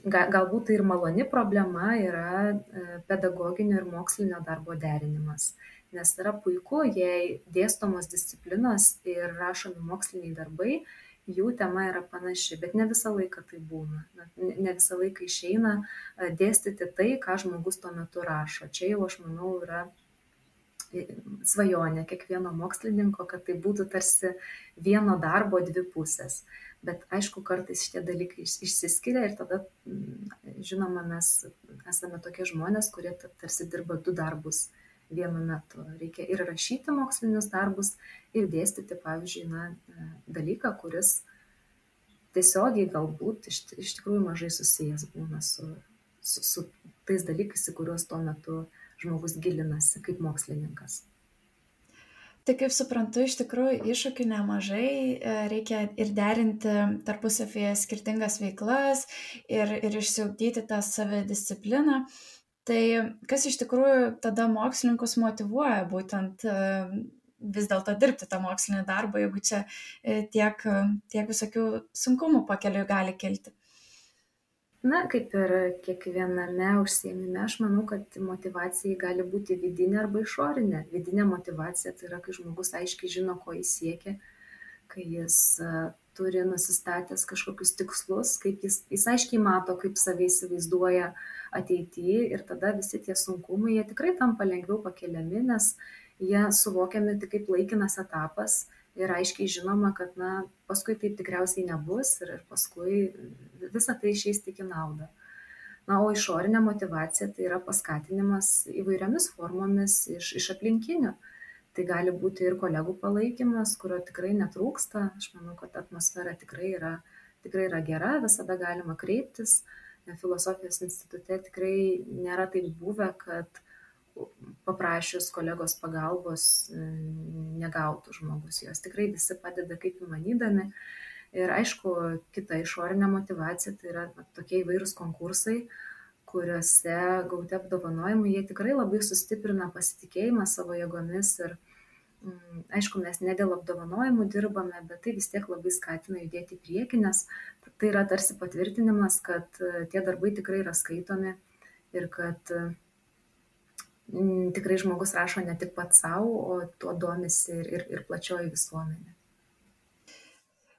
galbūt tai ir maloni problema yra pedagoginio ir mokslinio darbo derinimas. Nes yra puiku, jei dėstomos disciplinos ir rašomi moksliniai darbai, jų tema yra panaši, bet ne visą laiką tai būna. Ne visą laiką išeina dėstyti tai, ką žmogus tuo metu rašo. Čia jau, aš manau, yra svajonė kiekvieno mokslininko, kad tai būtų tarsi vieno darbo dvi pusės. Bet aišku, kartais šitie dalykai išsiskiria ir tada, žinoma, mes esame tokie žmonės, kurie tarsi dirba du darbus vienu metu. Reikia ir rašyti mokslinius darbus, ir dėstyti, pavyzdžiui, dalyką, kuris tiesiogiai galbūt iš tikrųjų mažai susijęs būna su tais dalykais, į kuriuos tuo metu žmogus gilinasi kaip mokslininkas. Tai kaip suprantu, iš tikrųjų iššūkių nemažai, reikia ir derinti tarpusavyje skirtingas veiklas ir išsiugdyti tą savidiscipliną. Tai kas iš tikrųjų tada mokslininkus motyvuoja būtent vis dėlto dirbti tą mokslinį darbą, jeigu čia tiek visokių sunkumų pakeliui gali kilti? Na, kaip ir kiekviename užsiėmime, aš manau, kad motyvacija gali būti vidinė arba išorinė. Vidinė motyvacija tai yra, kai žmogus aiškiai žino, ko jis siekia, kai jis turi nusistatęs kažkokius tikslus, kaip jis aiškiai mato, kaip save įsivaizduoja ateityje ir tada visi tie sunkumai, jie tikrai tampa lengviau pakeliami, nes jie suvokiami tik kaip laikinas etapas. Ir aiškiai žinoma, kad paskui taip tikriausiai nebus ir paskui visą tai išeis tik į naudą. O išorinė motyvacija tai yra paskatinimas įvairiomis formomis iš aplinkinių. Tai gali būti ir kolegų palaikymas, kurio tikrai netrūksta. Aš manau, kad atmosfera tikrai yra gera, visada galima kreiptis. Filosofijos institute tikrai nėra taip buvę, kad paprašius kolegos pagalbos negautų žmogus. Jos tikrai visi padeda kaip įmanydami. Ir aišku, kita išorinė motyvacija tai yra tokie įvairūs konkursai, kuriuose gauti apdovanojimai, jie tikrai labai sustiprina pasitikėjimą savo jėgomis. Ir aišku, mes ne dėl apdovanojimų dirbame, bet tai vis tiek labai skatina judėti į priekį, nes tai yra tarsi patvirtinimas, kad tie darbai tikrai yra skaitomi ir kad tikrai žmogus rašo ne tik pats savo, o tuo domisi ir plačioji visuomenė.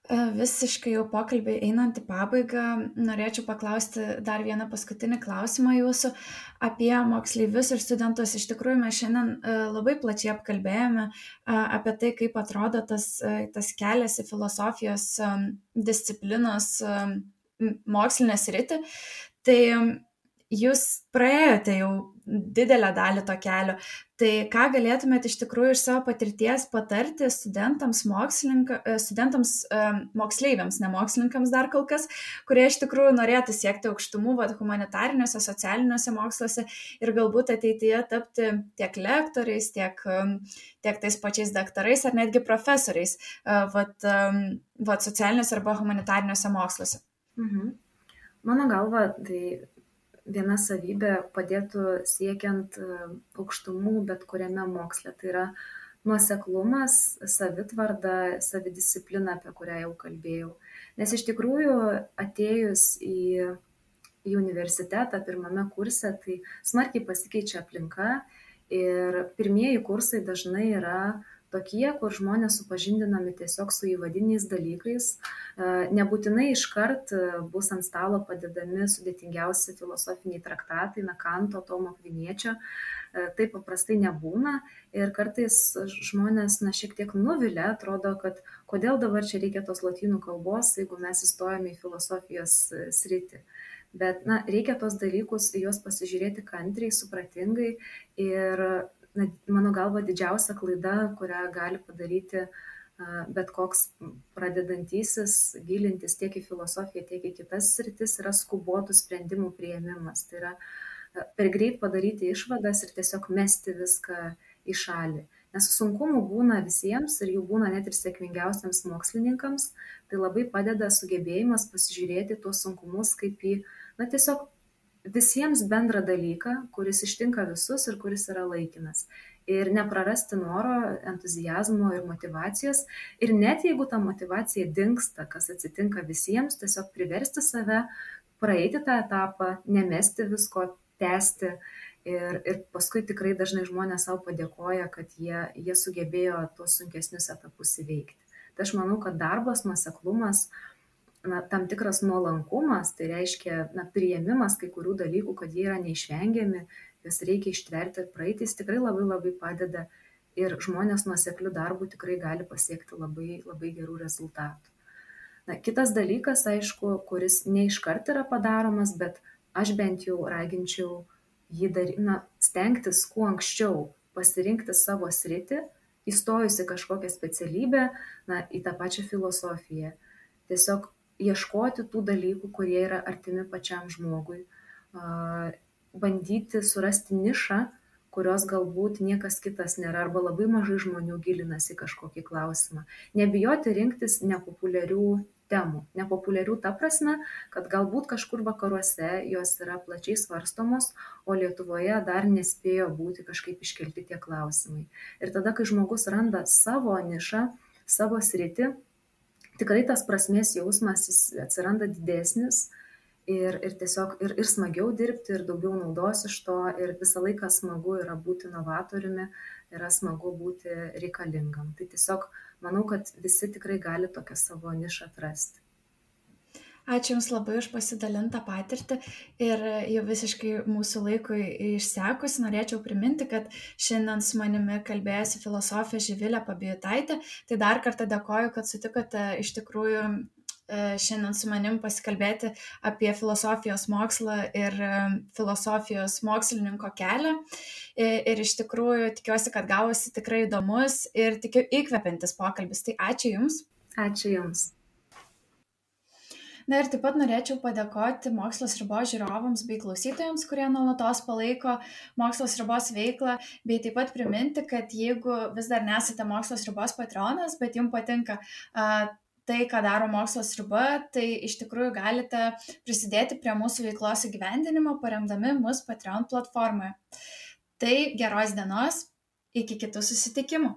Visiškai jau pokalbį einant į pabaigą, norėčiau paklausti dar vieną paskutinį klausimą jūsų apie moksleivius ir studentus. Iš tikrųjų, mes šiandien labai plačiai apkalbėjome apie tai, kaip atrodo tas kelias į filosofijos disciplinos mokslinę sritį. Tai jūs praėjote jau didelę dalį to kelio. Tai ką galėtumėte iš tikrųjų iš savo patirties patarti studentams, moksleiviams, ne mokslininkams dar kol kas, kurie iš tikrųjų norėtų siekti aukštumų humanitariniuose, socialiniuose moksluose ir galbūt ateityje tapti tiek lektoriais, tiek tais pačiais daktarais ar netgi profesoriais socialiniuose arba humanitariniuose moksluose? Mano galva, tai viena savybė padėtų siekiant aukštumų bet kuriame moksle. Tai yra nuoseklumas, savitvarda, savidisciplina, apie kurią jau kalbėjau. Nes iš tikrųjų atėjus į universitetą pirmame kurse, tai smarkiai pasikeičia aplinka ir pirmieji kursai dažnai yra tokie, kur žmonės supažindinami tiesiog su įvadiniais dalykais. Nebūtinai iškart bus ant stalo padedami sudėtingiausi filosofiniai traktatai, Kanto, Tomo Akviniečio. Taip paprastai nebūna ir kartais žmonės šiek tiek nuvilia, atrodo, kad kodėl dabar čia reikia tos lotynų kalbos, jeigu mes įstojame į filosofijos sritį. Bet reikia tos dalykus, juos pasižiūrėti kantriai, supratingai ir mano galva didžiausia klaida, kurią gali padaryti bet koks pradedantysis gilintis tiek į filosofiją, tiek į kitas sritis, yra skubotų sprendimų priėmimas. Tai yra per greit padaryti išvadas ir tiesiog mesti viską į šalį. Nes sunkumų būna visiems ir jų būna net ir sėkmingiausiams mokslininkams. Tai labai padeda sugebėjimas pasižiūrėti tuos sunkumus kaip į, tiesiog visiems bendrą dalyką, kuris ištinka visus ir kuris yra laikinas. Ir neprarasti noro, entuzijazmo ir motyvacijos. Ir net jeigu ta motyvacija dingsta, kas atsitinka visiems, tiesiog priversti save praeiti tą etapą, nemesti visko, tęsti. Ir paskui tikrai dažnai žmonės savo padėkoja, kad jie sugebėjo tuos sunkesnius etapus įveikti. Tai aš manau, kad darbas, nuoseklumas, tam tikras nuolankumas, tai reiškia priėmimas kai kurių dalykų, kad jie yra neišvengiami, jas reikia ištverti ir praeiti, jis tikrai labai labai padeda ir žmonės nuoseklių darbų tikrai gali pasiekti labai, labai gerų rezultatų. Kitas dalykas, aišku, kuris ne iškart yra padaromas, bet aš bent jau raginčiau jį stengtis kuo anksčiau pasirinkti savo sritį, įstojusi kažkokią specialybę, į tą pačią filosofiją. Tiesiog ieškoti tų dalykų, kurie yra artimi pačiam žmogui, bandyti surasti nišą, kurios galbūt niekas kitas nėra, arba labai mažai žmonių gilinasi į kažkokį klausimą. Nebijoti rinktis nepopuliarių temų. Nepopuliarių ta prasme, kad galbūt kažkur vakaruose jos yra plačiai svarstomos, o Lietuvoje dar nespėjo būti kažkaip iškelti tie klausimai. Ir tada, kai žmogus randa savo nišą, savo sritį, tikrai tas prasmės jausmas jis atsiranda didesnis ir tiesiog ir smagiau dirbti, ir daugiau naudos iš to, ir visą laiką smagu yra būti novatoriumi, yra smagu būti reikalingam. Tai tiesiog manau, kad visi tikrai gali tokią savo nišą atrasti. Ačiū Jums labai už pasidalintą patirtį ir jau visiškai mūsų laikui išsekus norėčiau priminti, kad šiandien su manimi kalbėjosi filosofė Živilė Pabijutaitė. Tai dar kartą dėkoju, kad sutikote iš tikrųjų šiandien su manim pasikalbėti apie filosofijos mokslą ir filosofijos mokslininko kelią. Ir iš tikrųjų tikiuosi, kad gavosi tikrai įdomus ir tikiu įkvepiantis pokalbis. Tai ačiū Jums. Ačiū Jums. Ir taip pat norėčiau padėkoti Mokslas ribos žiūrovams bei klausytojams, kurie nuolatos palaiko Mokslas ribos veiklą, bei taip pat priminti, kad jeigu vis dar nesate Mokslas ribos patronas, bet jums patinka tai, ką daro Mokslas riba, tai iš tikrųjų galite prisidėti prie mūsų veiklos įgyvendinimo, paremdami mus Patreon platformoje. Tai geros dienos, iki kitų susitikimų.